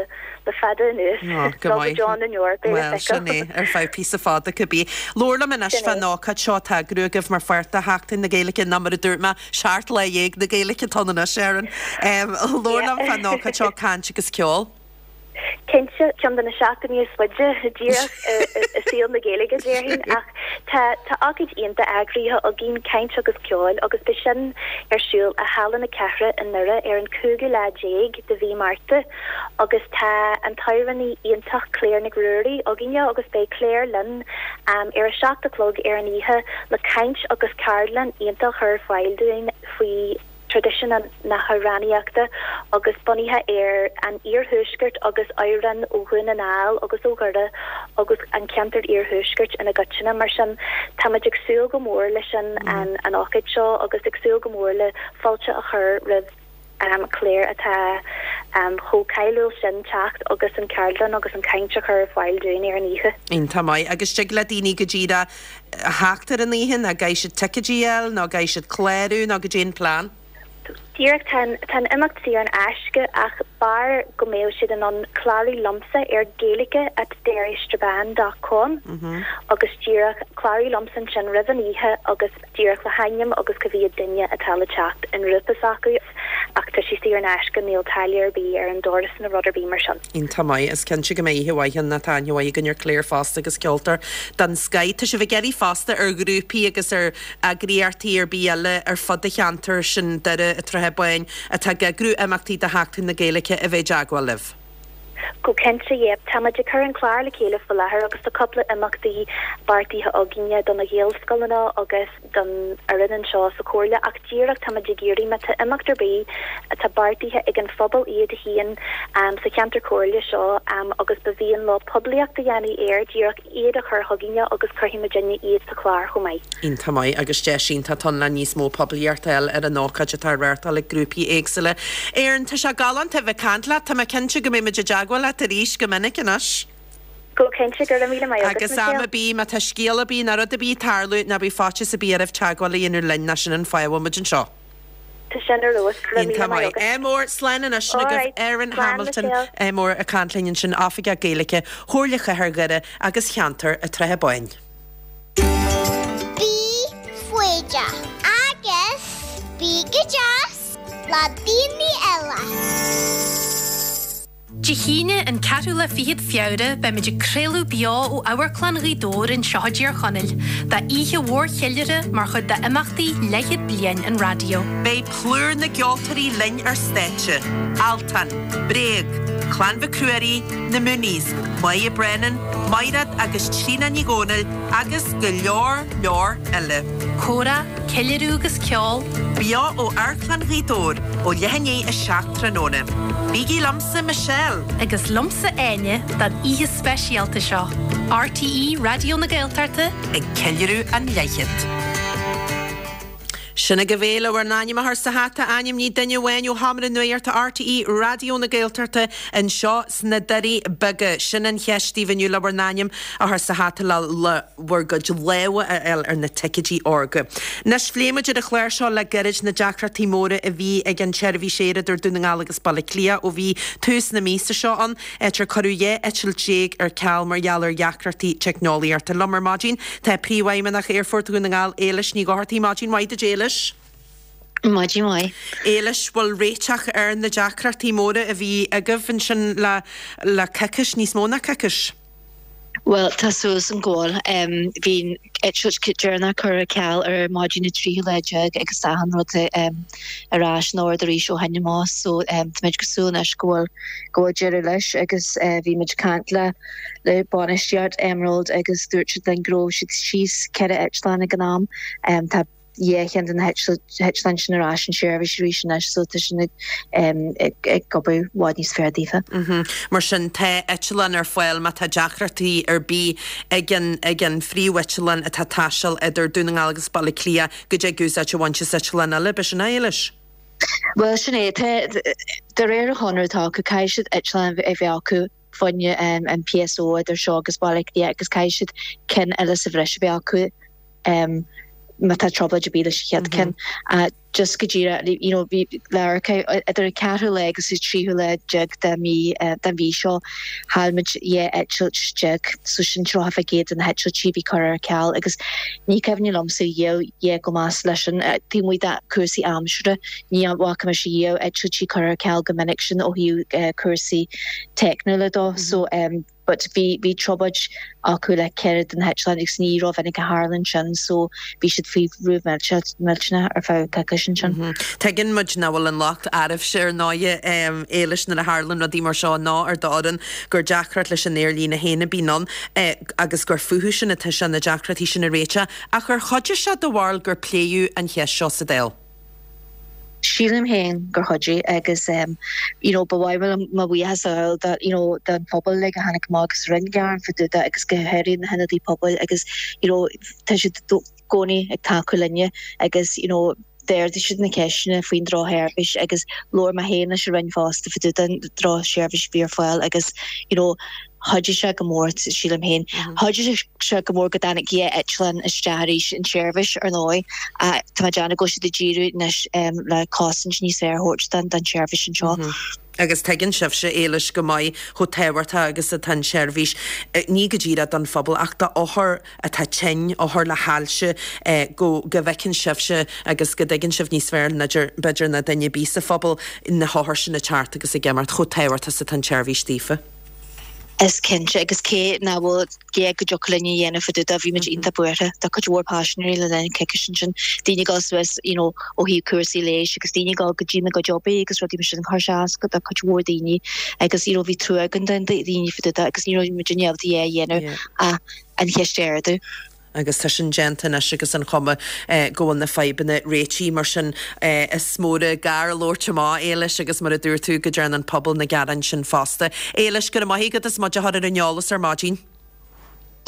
le fada anuas, Oh, go nó go maith. deo na ndeor, beidh le Bhuel, sin feiceáil. é, ar feadh píosa fada cibé. Labhair liom anois Sin é. fán ócáid seo atá á eagrú agaibh mar pháirt de Sheachtain na Gaeilge, nó mar a dúirt mé, 17 lá na Gaeilge atá ann anois, Erin. Labhair liom fán ócáid seo, caint agus ceol. Cinnte, ceann de na seachtainí is faide díreach i saol na Gaeilge, déarfainn, ach tá tá ócáid iontach eagraithe againn, Caint agus Ceol, agus beidh sin ar siúl i Halla na Cathrach i nDoire ar an cúigiú lá déag de mhí Márta agus tá an t-amhránaí iontach Claire Nic Ruairí againne agus beidh Claire linn ar a 7 a chlog ar an oíche le caint agus ceardlann iontach a chur ar fáil dúinn faoi traidisiún na hamhránaíochta agus bunaithe ar an iarthuaisceart agus amhráin ó Dhún na nGall agus ó Dhoire agus an ceantar iarthuaiscirt ina gcoitinne. Mar sin, tá muid ag súil go mór leis an an ócáid seo agus ag súil go mór le fáilte a chur roimh Claire atá chomh cáiliúil sin teacht agus an ceardlann agus an caint a chur ar fáil dúinn ar an oíche. Iontach maith. Agus dtig le daoine go díreach a theacht ar an oíche nó caithfidh siad ticéidí a fháil nó caithfidh siad clárú nó goidé an plean? Díreach, tá an tá an imeacht saor in aisce ach b'fhearr go mbeadh siad in ann clárú liomsa ar gaeilge at derrystrabane dot com agus díreach clárú liomsa ansin roimh an oíche agus díreach le hainm agus cá mhéad duine atá le teacht i ngrúpa s'acu ach tá sé saor in aisce, níl táille ar bith ar an doras nó rud ar bith mar sin. Iontach maith. Is cinnte go mbeidh oíche mhaith ann, tá aithne mhaith againn ar Claire fosta agus ceoltóir den scoith. Tá sibh ag iarraidh fosta ar ghrúpaí agus ar eagraíochtaí ar bith eile ar fud an cheantair sin, Doire, an tSratha Báin, atá ag eagrú imeachtaí do Sheachtain na Gaeilge a bheith i dteagmháil libh. Go cinnte, yeah. Tá muid ag cur an clár le chéile faoi láthair agus tá cúpla imeachtaí beartaithe againne do na Gaelscoileanna agus don fhoireann anseo sa Chomhairle ach díreach tá muid ag iarraidh má tá imeacht ar bith atá beartaithe ag an phobal iad féin sa cheantar comhairle seo agus ba mhian leo poiblíocht a dhéanamh air, díreach iad a chur chugainne agus cuirfidh muidinne iad sa chlár chomh maith. Iontach maith agus deis iontach atá ann le níos mó poiblíocht a fháil ar an ócáid atá á reáchtáil ag grúpaí éagsúla. Erin, tá sé galánta a bheith ag caint leat. Tá mé cinnte go mbeidh muid i dteagmháil leat arís go minic anois. Go cinnte, go raibh míle maith agat, Agus am Michelle. ar bith, má tá scéal ar bith nó rud ar bith ag tarlú, ná bíodh faitíos ar bith oraibh teagmháil a dhéanamh linn, nó sin an fáth a bhfuil muid anseo. Tá sin ar fheabhas, go raibh míle Iontach maith maith. agat. Ádh mór, slán anois All agaibh. right, Erin slán Hamilton, Michelle. ádh mór ag caint linn ansin, Oifigeach Gaeilge Chomhairle Chathair Dhoire agus Cheantar an tSratha Báin. Bí foighdeach agus bí go deas le daoine eile. Dé hAoine, an ceathrú lá fichead Feabhra, beimid ag craoladh beo ó Amharclann Ghaoth Dobhair anseo i dTír Chonaill, d'oíche mhór cheiliúrtha mar chuid d'imeachtaí Leathchéad Bliain an Raidió. Beidh plúr na gceoltóirí linn ar stáitse, Altan, Bréag, Clann Mhic Ruairí, Na Mooneys, Moya Brennan, Maighread agus Tríona Ní Dhomhnaill agus go leor leor eile. Comhrá, ceiliúradh agus ceol. Beo ó Amharclann Ghaoth Dobhair ó leath i ndiaidh a 7 tráthnóna. Bígí liomsa, Michelle! Agus liomsa, Áine, don oíche speisialta seo. RTÉ Raidió na Gaeltachta. Ag ceiliúradh an leathchéad. Sin agaibh é le bhur n-ainm a chur sa hata, ainmnigh duine amháin ó Sheomra Nuachta RTÉ Raidió na Gaeltachta anseo sna Doirí Beaga. Sin an cheist daoibh inniu le bhur n-ainm a chur sa hata le bhur gcuid lámha a fháil ar na ticéidí órga. Anois, phléigh muid ar an chlár seo le gairid na deacrachtaí móra a bhí ag an tseirbhís aeir idir Dún na Ngall agus Baile Átha Cliath ó bhí tús na míosa seo ann. áit ar cuireadh 12 eitilt ar ceal mar gheall ar dheacrachtaí teicneolaíochta. Liom ar maidin tá Príomhfheidhmeannach Aerfort Dhún na nGall, Éilis Ní Dhochartaigh. Maidin mhaith duit, Éilis. Maidin mhaith. Éilis, bhfuil réiteach ar na deacrachtaí móra a bhí agaibh ansin le le coicís, níos mó ná coicís? Bhuel, tá súil agam go bhfuil. Bhí an eitilt deireanach curtha ar ceal ar maidin an tríú lá déag agus tá achan rud ar ais in ord arís ó shin amach so táimid ag súil anois go bhfuil go bhfuil deireadh leis agus bhí muid ag caint le le bainistíocht Emerald agus dúirt siad linn go raibh siad síos 4 eitleán ag an am. Tá dhá cheann de na heitleáin sin ar ais in seirbhís arís anois so tá sin ag obair i bhfad níos fearr daofa. Mar sin tá eitleán ar fáil má tá deacrachtaí ar bith ag an ag an phríomheitleán atá ag taisteal idir Dún na nGall agus Baile Átha Cliath go dtig úsáid a bhaint as eitleán eile, b'shin é, Éilis? Bhuel sin é, tá de réir an chonradh atá acu caithfidh siad eitleán a bheith acu fá choinne an PSO idir seo agus Baile Átha Cliath agus caithfidh siad ceann eile sa bhreis a bheith acu. má tá trioblóid ar bith leis an chéad ceann. Just go díreach, you know, bhí le amharc idir an ceathrú lá agus an tríú lá déag de mí, den mhí seo, chaill muid 12 eitilt, so sin 30% de na heitiltí a bhí curtha ar ceal agus ní cuimhin liomsa riamh a dhath chomh measa leis sin. Taobh amuigh de cúrsaí aimsire, ní bhfaca mise riamh eitiltí curtha ar ceal chomh minic sin ó thaobh cúrsaí teicniúla dó. So, but bhí, bhí trioblóid acu le ceithre de na heitleáin agus ní rómhinic a tharlaíonn sin so bhí siad faoi bhrú millteanach ar feadh coicís ansin. Tuigeann muid nach bhfuil an locht oraibhse ar ndóighe, Éilis, nuair a tharlaíonn rudaí mar seo ná ar d'fhoireann, gur deacracht leis an aerlíne féin a bhíonn ann agus gur fúthu sin atá sé na deacrachtaí sin a réiteach. Ach ar chuidigh sé, do bharúil, gur pléadh an cheist seo sa Dáil? Sílim féin gur chuidigh agus you know ba mhaith liom mo bhuíochas a ghabháil do you know don phobal uilig a tháinig amach agus rinne gearán fá dtaobh de agus go háirithe na hionadaithe pobail agus you know tá siad i gcónaí ag tacú linne agus you know d'ardaigh siad na ceisteanna faoin drochsheirbhís agus labhair mé féin leis an Roinn fosta fá dtaobh den drochsheirbhís a bhí ar fáil agus you know Chuidigh sé go mór, sílim féin. Chuidigh sé go mór go dtáinig dhá eitleán isteach arís in seirbhís, ar ndóigh. Tá mé ag déanamh go bhfuil siad ag díriú anois le cosaint níos fearr a thabhairt don tseirbhís anseo. Agus tuigeann sibhse, Éilis, go maith chomh tábhachtach agus atá an tseirbhís, ní go díreach don phobal ach d'othair atá tinn, othair le hailse, go go bhfeiceann sibhse agus go dtuigeann sibh níos fearr b'fhéidir ná duine ar bith sa phobal na hothair sin ag teacht agus ag imeacht, chomh tábhachtach is atá an tseirbhís daofa. Is cinnte, agus cé nach bhfuil a dhath go dtiocfadh linn a dhéanamh fá dtaobh de, bhí muid iontach buartha do chuid mhór paisinéirí le linn coicís ansin, daoine ag dul suas you know ó thaobh cúrsaí leighis agus daoine ag dul go dtí na gcuid oibrí agus rudaí mar sin, chuir sé as do chuid mhór daoine agus you know bhí trua againn do dhaoine fá dtaobh de agus ní raibh muid in ábalta a dhath a dhéanamh ach an cheist a ardú. Agus tá sin déanta anois agus an chuma go bhfuil na fadhbanna réitithe. Mar sin, is mór an gar labhairt amach, Éilis, agus mar a dúirt tú, go dtearn an pobal na gearáin sin fosta. Éilis, go raibh maith agat as muid a chur ar an eolas ar maidin.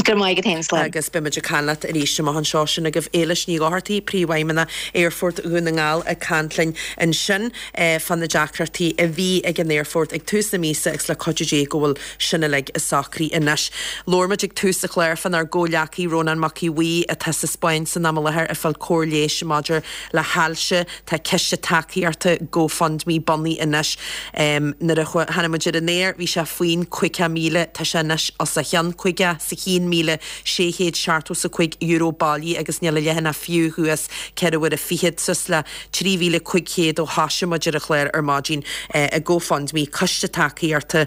Go raibh maith agat féin, slán. Agus beidh muid ag caint leat arís amach anseo. Sin agaibh Éilis Ní Dhochartaigh, Príomhfheidhmeannach Aerfort Dhún na nGall ag caint linn ansin fá na deacrachtaí a bhí ag an aerfort ag tús na míosa agus le cuidiú Dé go bhfuil sin uilig socraithe anois. Labhair muid ag tús an chláir fánár gcomhghleacaí Rónán Mac Aodha Bhuí atá sa Spáinn san am i láthair ag fáil cóir leighis maidir le hailse. Tá ciste tacaíochta GoFundMe bunaithe anois. Nuair a tháinig muid ar an aer bhí sé faoin 50,000, tá sé anois os a chionn, €51,675 bailithe agus níl a leathanach fiú thuas ceithre huaire fichead suas le 3,500 ó thoisigh muid ar an chlár ar maidin i GoFundMe, Coiste Tacaíochta,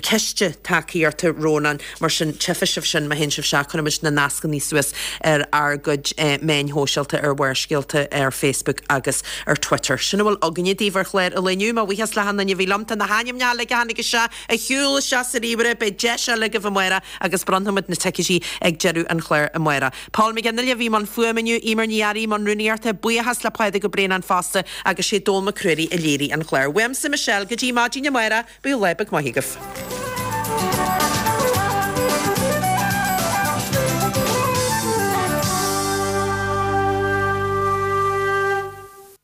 Ciste Tacaíochta Rónán, mar sin tchífidh sibh sin má théann sibh isteach, cuirfidh muid na nascanna suas ar ár gcuid meáin shóisialta, ar Bharrscéalta ar Facebook agus ar Twitter. Sin a bhfuil againne daoibh ar chlár an lae inniu. Mo bhuíochas le hachan duine a bhí liom. Tá na hainmneacha uilig a tháinig isteach ag siúl isteach sa ríomhaire, beidh deis eile agaibh amárach agus bronnfaimid na ticéidí ag deireadh an chláir amárach. Paul McGinley a bhí i mbun fuaime inniu, Eimear Ní Fhearraigh i mbun rúnaíochta, buíochas le Pádraig Ó Braonáin fosta agus sé Dónall Mac Ruairí a léirigh an clár. Uaimse Michelle, go dtí maidin amárach, bíodh lá beag maith agaibh.